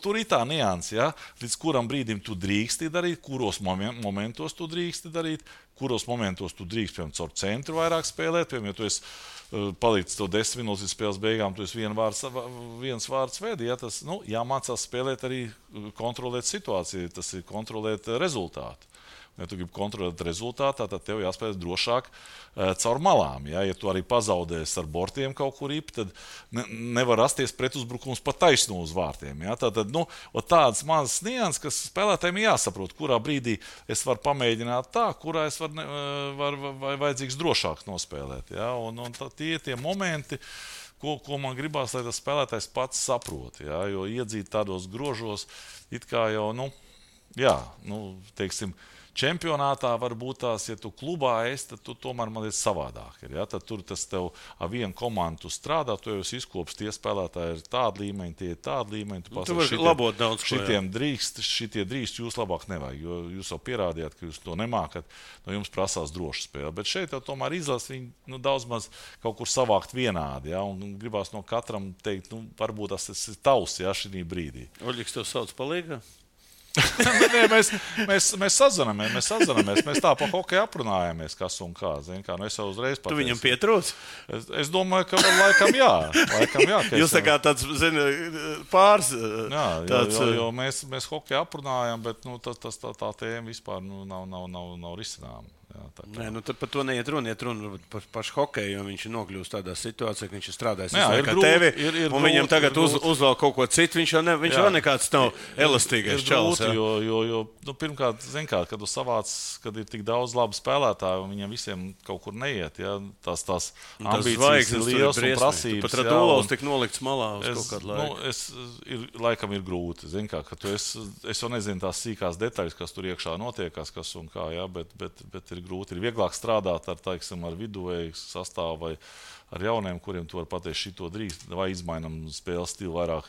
tur ir tā nianse, ja? Līdz kuram brīdim tu drīksti darīt, kuros momentos tu drīksti darīt, kuros momentos tu drīkst, piemēram, caur centru vairāk spēlēt, piemēram, ja tu esi palicis to 10 minūtes līdz spēles beigām, tu esi viens vārds vedi, ja? Tas jāmācās spēlēt arī kontrolēt situāciju, tas ir kontrolēt rezultātu. Ja tu gribi kontrolēt rezultātā, tad tev jāspēlē drošāk caur malām. Ja tu arī pazaudēsi ar bortiem kaut kur īpi, tad nevar rasties pretuzbrukums pa taisno uz vārtiem. Ja? Tātad, tādas mazas nianses, kas spēlētājiem jāsaprot, kurā brīdī es varu pamēģināt tā, kurā es varu vajadzīgs drošāk nospēlēt. Ja? Un tie momenti, ko man gribās, lai tas spēlētājs pats saprot. Ja? Jo iedzīt tādos grožos, it kā jau, teiksim, čempionātā var būt tās, ja tu klubā esi, tad tu tomēr man ir savādāk. Ja? Tad tur tas tev ar vienu komandu strādā, tu jau esi izkops, tie spēlētāji ir tādi līmeņi, tie ir tādi līmeņi. Tu vari labot daudz ko. Šitie drīkst, jūs labāk nevajag, jo jūs jau pierādījāt, ka jūs to nemākat, no jums prasās droša spēle. Bet šeit jau tomēr izlasa viņi daudz maz kaut kur savākt vienādi, ja? Un gribās no katram teikt, varbūt tas ir tavs, ja, šī brīdī. Oļiks tev sauc palīgā? Nē, mēs sazināmies, mēs tā pa hokeju aprunājamies, kas un kā. Es jau uzreiz pateicu. Tu viņam pietrūc? Es domāju, ka laikam jā. Jūs tā kā tāds, pāris. Jā, jo mēs hokeju aprunājam, bet tā tēma vispār nav risināma. Nē, tad par to neiet runa. Iet runa par pašu hokeju, jo viņš ir nokļūst tādā situācijā, ka viņš ir strādājis kā tevi, un viņam tagad uzvēl kaut ko citu. Viņš jau nekāds nav elastīgais čalis. Jo pirmkārt, kad tu savāc, kad ir tik daudz labu spēlētāju, un viņiem visiem kaut kur neiet, ja, tās ambīcijas ir liels un prasības. Pat Radulovs tik nolikts malā uz kaut kādu laiku. Laikam ir grūti. Ka es jau nezinu tās sīkās detaļas, kas tur iekšā notiekās, kas un kā, ja, bet ir grūti. Ir vieglāk strādāt ar viduvēju sastāvu vai ar jauniem, kuriem tu vari pateikt, šito drīkst, vai izmainam spēles stilu vairāk,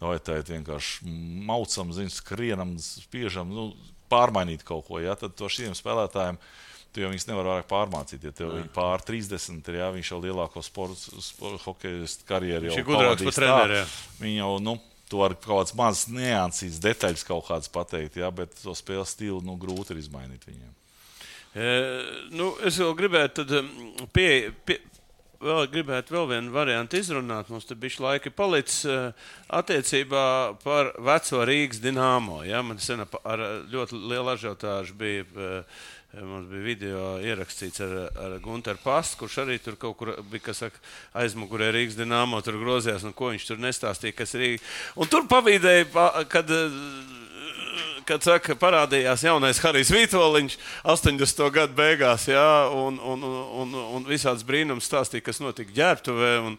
vai tā ir vienkārši maucam, skrienam, spiežam, pārmainīt kaut ko. Ja? Tad to šiem spēlētājiem tu jau viņus nevar vairāk pārmācīt. Ja tev pār 30 ir, ja, viņš jau lielāko hokeju karjeru jau pavadīs tā. Viņi jau, tu vari kaut kāds mazs niansīs, detaļas kaut kāds pateikt, ja? Bet to spēles stilu grūti ir izmainīt viņiem. Es vēl gribētu vēl vienu variantu izrunāt. Mums te bišķi laika palicis attiecībā par veco Rīgas Dinamo. Ja? Man sen ar ļoti lielu ažiotāžu bija, mums bija video ierakstīts ar Gunteru Pastu, kurš arī tur kaut kur bija, aizmugurē Rīgas Dinamo, tur grozījās, un ko viņš tur nestāstīja, kas Rīga. Un tur pavīdēja, kad parādījās jaunais Harijs Vītoliņš 80. gadu beigās, jā, un visāds brīnums stāstīja, kas notika Ģērbtuvē un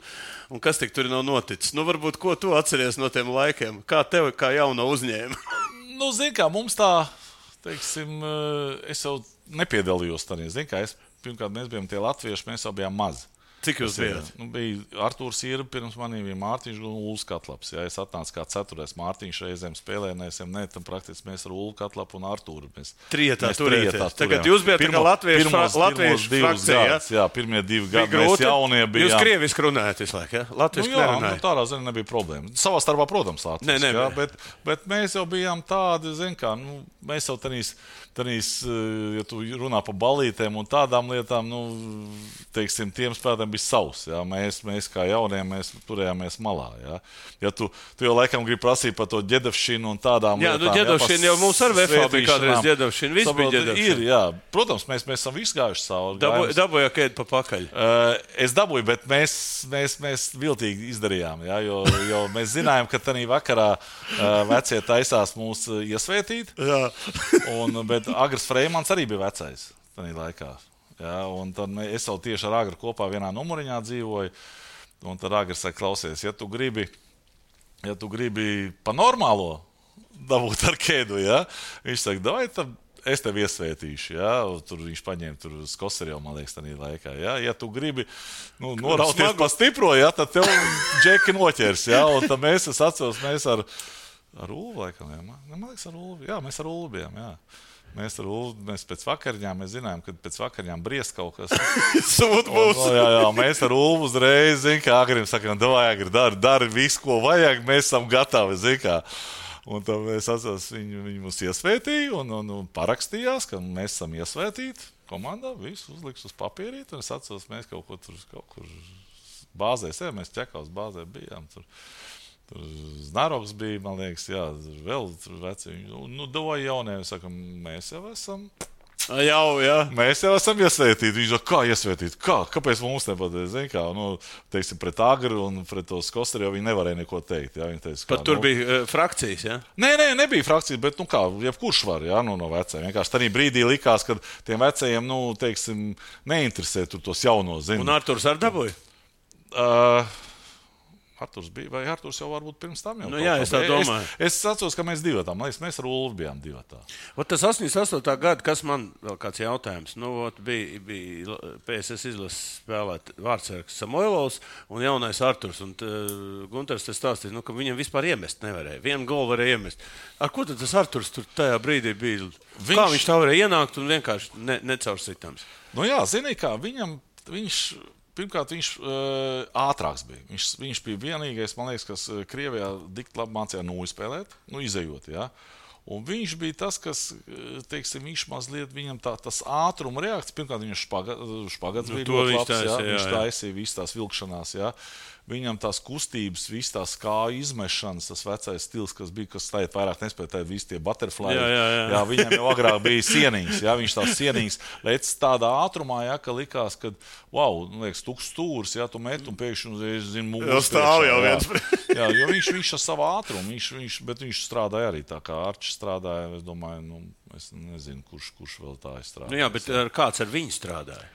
kas tik tur nav noticis. Varbūt, ko tu atceries no tiem laikiem? Kā tev, kā jauno uzņēma? Zini kā, mums tā, teiksim, es jau nepiedalījos tādā. Zini kā, pirmkārt, mēs bijām tie latvieši, mēs jau bijām mazi. Cik jūs bijāt? Bija Artūrs Ierba pirms manī, bija Mārtiņš un Ulfs Katlaps. Ja, es atnācu kā 4. Mārtiņš reizēm spēlēnēsim, tam praktiski mēs ar Ulfu Katlapu un Artūru. Trietā turēties. Tagad jūs bijat kā latviešu frakcija. Jā, pirmie 2 gadi mēs jaunie bijām. Jūs krieviski runājat visu laiku, ja? Latviešu nerunājat. Tādā ziņā nebija problēma. Savā starpā, protams, latviešu. Ja, bet mēs jau bijām tādi, kā, mēs jau tanīs, ja tu runā par balītēm un tādām lietām, teiksim, tiem spēlētājiem bija savs. Ja? Mēs kā jaunie, mēs turējāmies malā. Ja, ja tu jau laikam gribi prasīt par to ģedevšinu un tādām lietām. Jā, ģedevšina jau mums ar VFA bija kādreiz ģedevšina. Viss bija ģedevšina. Ir, jā. Protams, mēs esam visi gājuši savu. Dabūja kēdi pa pakaļ. Es dabūju, bet mēs viltīgi izdarījām. Ja? Jo mēs zinājām, ka tanī vakarā vecie taisās mūs iesvētīt. Bet Agrs Freimans arī bija vecais tanī laikā. Ja, un tad es jau tieši ar Agru kopā vienā numuriņā dzīvoju. Un tad Agrs saka, klausies, ja tu gribi pa normālo dabūt ar kēdu, ja? Viņš saka, davai, tad es tevi iesvētīšu. Ja? Tur viņš paņēma Skoserjevu, man liekas, tādā laikā. Ja? Ja tu gribi norauties pa stipro, ja? Tad tev džeki noķers. Ja? Un tad es atceros, mēs ar Ulvu laikam. Ja? Man liekas, ar Ulvu. Jā, mēs ar Ulvu bijām. Jā. Mēs pēc vakariņām, mēs zinājām, ka pēc vakariņām briest kaut kas. Sūd būs. Jā, mēs ar Ulvu uzreiz, kā Agrim sakām, Agri, dari visu, ko vajag, mēs esam gatavi, kā. Un tad mēs atceros, viņi mums iesvētīja un parakstījās, ka mēs esam iesvētīti. Komandā visu uzliks uz papīrīt, un es atceros, mēs kaut kur bāzēs, mēs Čekaus bāzē bijām tur. Tur Znaroks bija, man liekas, jā, vēl tur veci. Doja jaunie, sakam, mēs jau esam. Jā. Mēs jau esam iesvētīti. Viņš saka, kā iesvētīti? Kāpēc mums nepateic? Teiksim, pret Agru un pret to Skosteri jau viņi nevarēja neko teikt. Jā, viņi teica, Pat tur bija frakcijas, jā? Nē, nebija frakcijas, bet, jebkurš var, jā, no vecajiem. Vienkārši tajā brīdī likās, ka tiem vecajiem, teiksim, neinteresē tur tos jaunos, Un Arturs ar dabūja? Arturs bija, vai Arturs jau varbūt pirms tam jau? Jā, es tā domāju. Es atceros, ka mēs divatā, mēs ar Ulvu bijām divatā. Tas 88. gada, kas man vēl kāds jautājums, bija PSS izlases spēlēt vārdsargs Samoilovs un jaunais Arturs. Un Gunters te stāstīja, ka viņam vispār iemest nevarēja. Vienu golu varēja iemest. Ar ko tad tas Arturs tur tajā brīdī bija? Kā viņš tā varēja ienākt un vienkārši necaursitams? Jā, zini kā, Pirmkārt, viņš ātrāks bija. Viņš bija vienīgais, man liekas, kas Krievijā dikti labi mācīja spēlēt, izejot. Ja? Un viņš bija tas, kas, teiksim, viņš mazliet viņam tas ātruma reakcija. Pirmkārt, viņš špagats bija ļoti labs. Viņš taisīja visas tās vilkšanās. Ja? Viņam tās kustības, visas tās kāju izmešanas, tas vecais stils, kas bija, kas tagad vairāk nespēja, tā visi tie butterfly. Jā, viņam jau agrāk bija sieniņas, jā, viņš tās sieniņas lec tādā ātrumā, jā, ka likās, ka, liekas, tuks stūrs, jā, tu met un pēkšņi, zinu, mūs stāv jau viens. Jā, jo viņš ar savu ātrumu, bet viņš strādāja arī tā, kā Arčs strādāja, es domāju, es nezinu, kurš vēl tā strādāja. Jā, bet kāds ar viņu strādāja?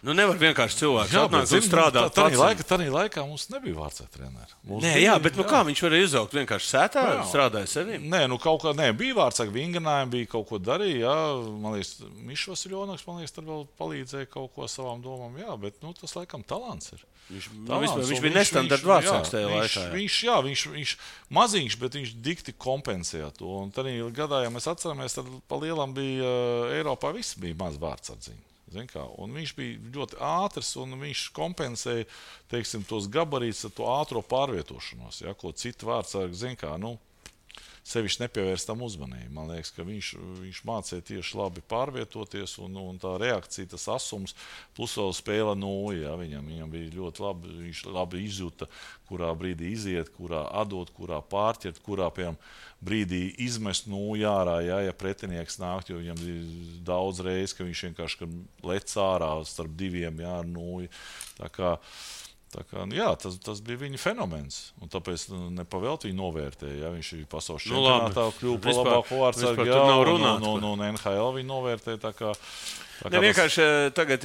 Nevar vienkārši cilvēks atnākt un strādāt. Tādā laikā mums nebija vārdsarga treneri. Bet kā viņš varēja izaugt? Vienkārši sētā strādāja saviem? Kaut kā, bija vārdsarga vinganājumi, bija kaut ko darīja. Jā, man liekas, Mišs Vasiljonoks, tad vēl palīdzēja kaut ko savām domām. Jā, bet tas laikam talants ir. Viņš bija nestandarta vārdsargs tajā laikā. Viņš maziņš, bet viņš dikti kompensēja to. Un tad gadā, ja mēs atceramies, tad pa lielam bija Eiropā viss bija maz vārdsardziņi. Un viņš bija ļoti ātrs, un viņš kompensēja, teiksim, tos gabarītus ar to ātro pārvietošanos, ja, ko citu vārdsargi, sevišķi nepievērst tam uzmanību. Man liekas, ka viņš mācīja tieši labi pārvietoties, un tā reakcija, tas asums, plus vēl spēle nulli, ja, viņam bija ļoti labi, viņš labi izjuta, kurā brīdī iziet, kurā atdot, kurā pārķert, kurā, piemēram, brīdī izmest nulli ārā, ja pretinieks nāk, jo viņam bija daudz reiz, ka viņš vienkārši lec ārā starp diviem, jā, ar nulli. Tā kā, jā, tas bija viņa fenomens. Un tāpēc nepavēlt viņu novērtēja. Ja? Viņš ir pasaules čempionātā kļuva par labāko vārdsargu. Un NHL viņu novērtēja. Vienkārši tagad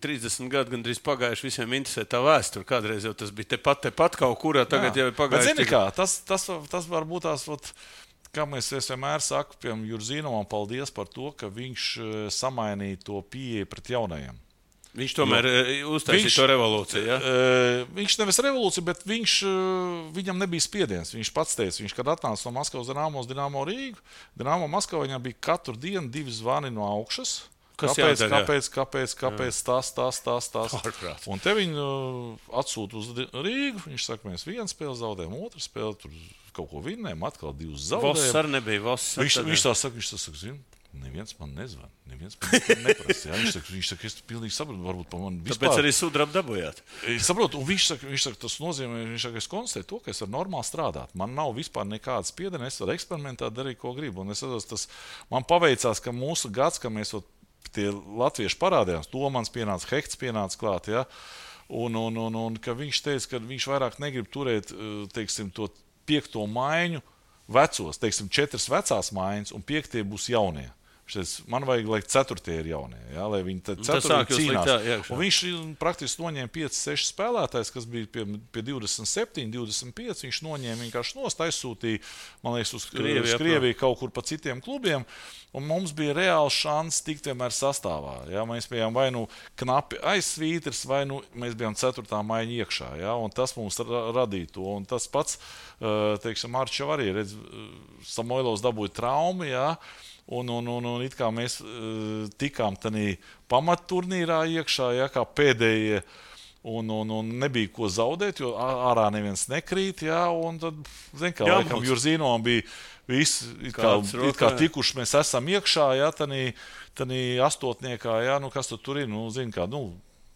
30 gadi gandrīz pagājuši, visiem interesē tā vēsture. Kādreiz jau tas bija tepat kaut kurā, tagad jau ir pagājuši. Bet zini kā, tas varbūt tās, kā mēs vienmēr sakam, piemēram, Jurzīnovam paldies par to, ka viņš samainīja to pieeju pret jaunajiem. Viņš tomēr uztaisīja to revolūciju, ja? Viņš nevis revolūciju, bet viņam nebija spiediens. Viņš pats teica, kad atnāca no Maskavas Dinamo Rīgu, Dinamo Maskavā viņam bija katru dienu 2 zvani no augšas. Kāpēc tas? Un te viņu atsūta uz Rīgu. Viņš saka, mēs 1 spēli zaudējam, 2 spēli, tur kaut ko vinnējam, atkal 2 zaudējam. Voss arī nebija. Viņš tā saka, zina, neviens man nezvan, neviens man neprasa. Viņš saka, es pilnīgi saprotu, varbūt pa man vispār. Tāpēc arī sudrabu dabūjāt. Es saprotu, un viņš saka, tas nozīmē, es konstatēju to, ka es varu normāli strādāt. Man nav vispār nekādas spiediena, es varu eksperimentēt, darīt, ko gribu. Un es saprotu, man paveicās, ka mūsu gads, ka mēs tie latvieši parādījās, Domans pienāca, Hekts pienāca klāt, ja? Un ka viņš teica, ka viņš vairāk negrib turēt, teiksim, to 5. maiņu vecos, teiksim, 4 vecās maiņas un 5 būs jaunie. Man vajag, lai 4 ir jaunie, ja? Lai viņi 4 cīnās. Un viņš praktiski noņēma 5-6 spēlētājs, kas bija pie 27, 25. Viņš noņēma vienkārši nost, aizsūtīja, man liekas, uz Krieviju kaut kur pa citiem klubiem. Un mums bija reāls šans tikt vienmēr sastāvā. Ja? Mēs bijām vai knapi aiz svītras, vai mēs bijām 4. maiņa iekšā. Ja? Un tas mums radīja to. Un tas pats, teiksim, Arčs jau arī, redz, Samoilovs dabūja traumu, ja? Un it kā mēs tikām tādā pamatturnīrā iekšā, ja, kā pēdējie, un nebija ko zaudēt, jo ārā neviens nekrīt, ja, un tad, zin kā, laikam Jurzīnom bija visi, it kā tikuši mēs esam iekšā, ja, tādā astotniekā, ja, nu, kas tur ir, nu, zin kā, nu,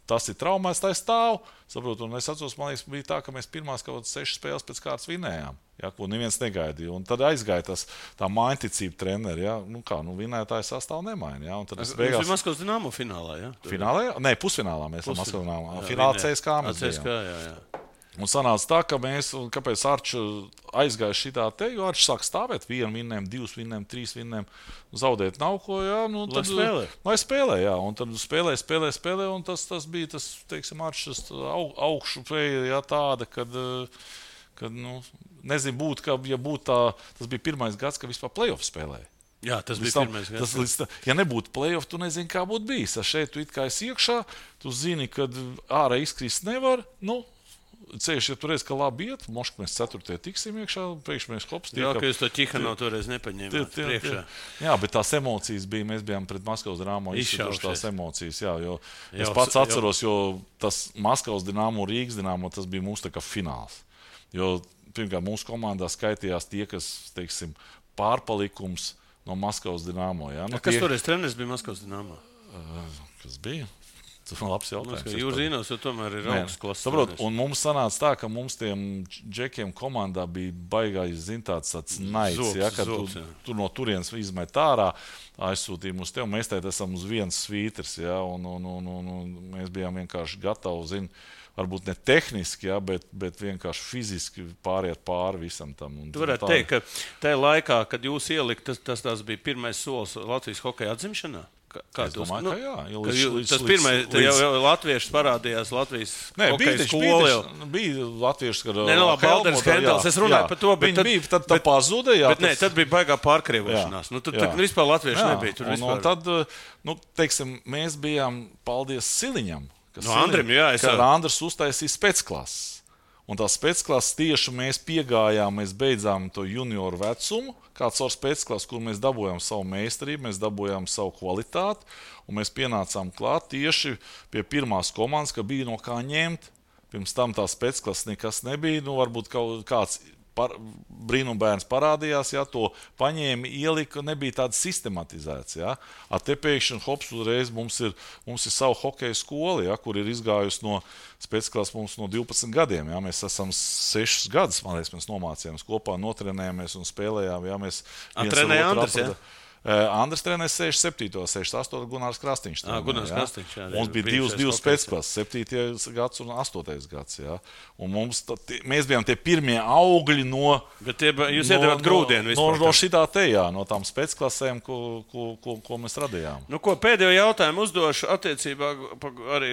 tas ir traumēs, tā stāv, saprotu, un es atceros, man liekas, bija tā, ka mēs pirmās kaut 6 spēles pēc kārtas vinējām, ja, ko neviens negaidīja, un tad aizgāja tā mainticība treneri, ja, nu kā, nu vinētāji sastāv nemaina, ja, un tad es beigās... Jūs Maskavas Dinamo finālā, ja? Finālā? Nē, pusfinālā mēs esam Maskavas Dinamo. Finālā CSKA mēs bijām. Jā. Un sanāca tā, ka mēs, un kāpēc Arču aizgāja šitā te, jo Arču sāk stāvēt 1 vinnēm, 2 vinnēm, 3 vinnēm, zaudēt nav ko, jā, nu tad... Lai spēlē, jā, un tad spēlē, un tas bija tas, teiksim, Arčus augšu pēja, jā, tāda, kad nu, nezinu, būtu tā, tas bija pirmais gads, ka vispār play-off spēlēja. Jā, tas bija pirmais gads. Ja nebūtu play-off, tu nezini, kā būtu bijis. Šeit tu it kā esi iekšā, tu zini, kad ārā izkrist nevar, nu, ceļš, ja tu reiz, ka labi iet, moška mēs 4. tiksim iekšā, priekš mēs hops. Jā, ka jūs to Ķihano toreiz nepaņēmāt priekšā. Jā, bet tās emocijas bija, mēs bijām pret Maskavas Dinamo izšķiruši tās emocijas, jā, jo es pats atceros, jo tas Maskavas Dinamo, Rīgas Dinamo, tas bija mūsu tā kā fināls. Jo, pirmkārt, mūsu komandā skaitījās tie, kas, teiksim, pārpalikums no Maskavas Dinamo, jā. Nu, kas toreiz treneris bija Maskavas Dinamo? Kas bija? Tas ir labs jautājums. Jūs zināt, jo tomēr ir augsts klases. Saprot, un mums sanāca tā, ka mums tiem džekiem komandā bija baigājis, tāds naids, ja, kad tu no turienes izmet ārā, aizsūtīja uz tevi, mēs tēt esam uz viens svīters, ja, un mēs bijām vienkārši gatavi, varbūt ne tehniski, ja, bet vienkārši fiziski pāriet pāri visam tam. Tu varētu teikt, ka tajā laikā, kad jūs ielikt, tas bija pirmais solis Latvijas hokeja atzimšanā? Es domāju, ka jā. Tas pirmais, jau latvieši parādījās Latvijas hokeja skola. Bija latvieši, kad Balders Hendels, es runāju par to, bet viņi bija, tad pazuda, jā. Bet nē, tad bija baigā pārkrievošanās. Nu, tad vispār latvieši nebija. Tur vispār. Un tad, nu, teiksim, mēs bijām, paldies Siliņam, Andrim, jā, kad Andrs uztaisīja specklases. Un tās specklases tieši mēs piegājām, mēs beidzām to junioru vecumu, kāds ar specklases, kur mēs dabūjām savu meistarību, mēs dabūjām savu kvalitāti, un mēs pienācām klāt tieši pie pirmās komandas, ka bija no kā ņemt. Pirms tam tā specklases nekas nebija, nu varbūt kāds brīnumbērns parādījās, ja, to paņēma, ielika, nebija tāds sistematizēts. Ja. Te pēkšņi hops uzreiz mums ir savu hokeja skola, ja, kur ir izgājusi no specklases mums no 12 gadiem. Ja. Mēs esam 6 gadus, man liekas, mēs nomācījāmies kopā, notrenējāmies un spēlējām. Ja. Mēs trenēja Andris, ja? Andris trenēja 67. 68. Gunārs Krastīņš. Gunārs Krastīņš, jā. Mums bija divas pēcklases, 7. gads un 8. gads. Jā. Un mēs bijām tie pirmie augļi no... Bet jūs iedevāt grūdienu vispār. No šitā te, jā, no tām spēcklasēm, ko mēs radījām. Nu, ko pēdējo jautājumu uzdošu attiecībā, arī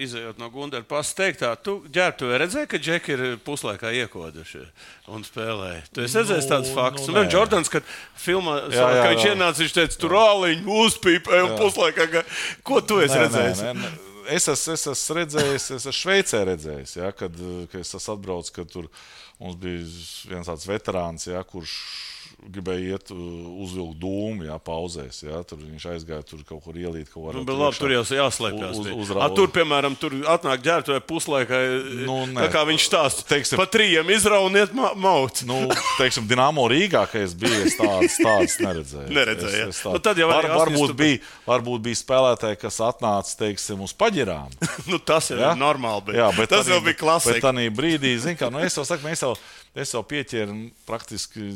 izējot no Gundara pasta teiktā. Tu ģērbtuvē redzēji, ka džeki ir puslaikā iekoduši un spēlēja? Tu esi redzējis tādus faktus? Un Jordans, kad filmā, ka viņš ienāca, viņš teica, tur āliņu uzpīpē un puslaikā. Ko tu esi redzējis? Es esmu redzējis, es esmu Šveicē redzējis, ja, kad es esmu atbraucis, kad tur mums bija viens tāds veterāns, ja, kurš gribēja iet uzvilkt dūmu, jā, pauzēs, jā, tur viņš aizgāja, tur kaut kur ielīt, kaut var. Nu, bet labi, tur jau jāslēpjās. Tur, piemēram, tur atnāk ģērbtuvē puslaikā, kā viņš stāsta, teiksim, pa 3 izrauniet mauc. Nu, teiksim, Dinamo Rīgā, ka es biju, es tādas neredzēju. Neredzēju, jā. Nu, tad jau varbūt bija spēlētāji, kas atnāca, teiksim, uz paģirām. Nu, tas jau ir normāli, bet jā, tas jau bija klasika. Bet tanī brīdī, zin kā, nu, es jau saku, es jau pieķēru praktiski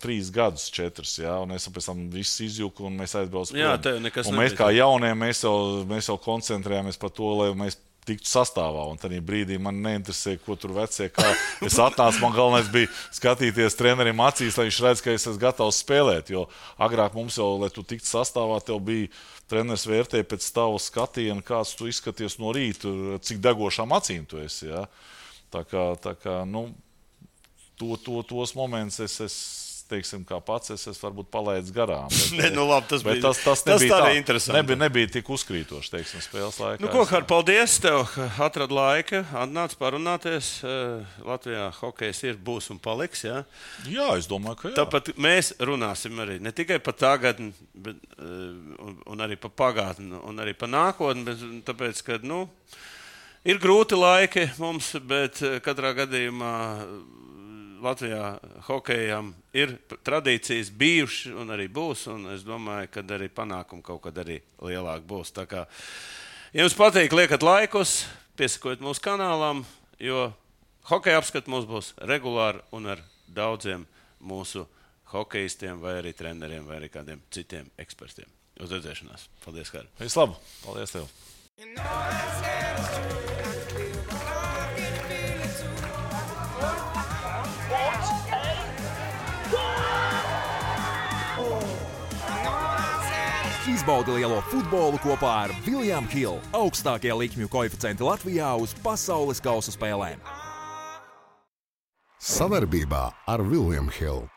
3 gadus, 4, jā, un es pēc tam viss izjūku, un mēs aizbraucam. Jā, tev nekas nebija. Un mēs kā jaunie, mēs jau koncentrējāmies par to, lai mēs tiktu sastāvā, un tajā brīdī man neinteresē, ko tur vecie, kā es atnācu, man galvenais bija skatīties trenerim acīs, lai viņš redz, ka es esmu gatavs spēlēt, jo agrāk mums jau, lai tu tiktu sastāvā, tev bija treneris vērtēja pēc tava skatiena, kāds tu izskaties no rīta, cik degošām acīm tu esi, jā. Tā kā, nu, tos momentus es teiksim, kā pats es varbūt palaidis garām. Ne, nu labi, tas bija nebija interesanti. Nebija tik uzkrītoši, teiksim, spēles laikā. Nu, ko, Har, paldies tev, ka atrad laika, atnāc parunāties. Latvijā hokejs būs un paliks, jā? Jā, es domāju, ka jā. Tāpat mēs runāsim arī ne tikai par tagadni, bet, un arī par pagātni, un arī par nākotni, bet tāpēc, ka, nu, ir grūti laiki mums, bet katrā gadījumā Latvijā hokejam ir tradīcijas bijušas un arī būs, un es domāju, ka arī panākumi kaut kad arī lielāk būs. Tā kā, ja jums patīk, liekat laikus, piesakojiet mūsu kanālam, jo hokeja apskats mums būs regulāri un ar daudziem mūsu hokejistiem vai arī treneriem vai arī kādiem citiem ekspertiem. Uz redzēšanās. Paldies, Kāri. Vislabāk. Paldies tev. Izbaudi lielo futbolu kopā ar William Hill, augstākie likmju koeficienti Latvijā uz pasaules kausa spēlēm. Savarbībā ar William Hill.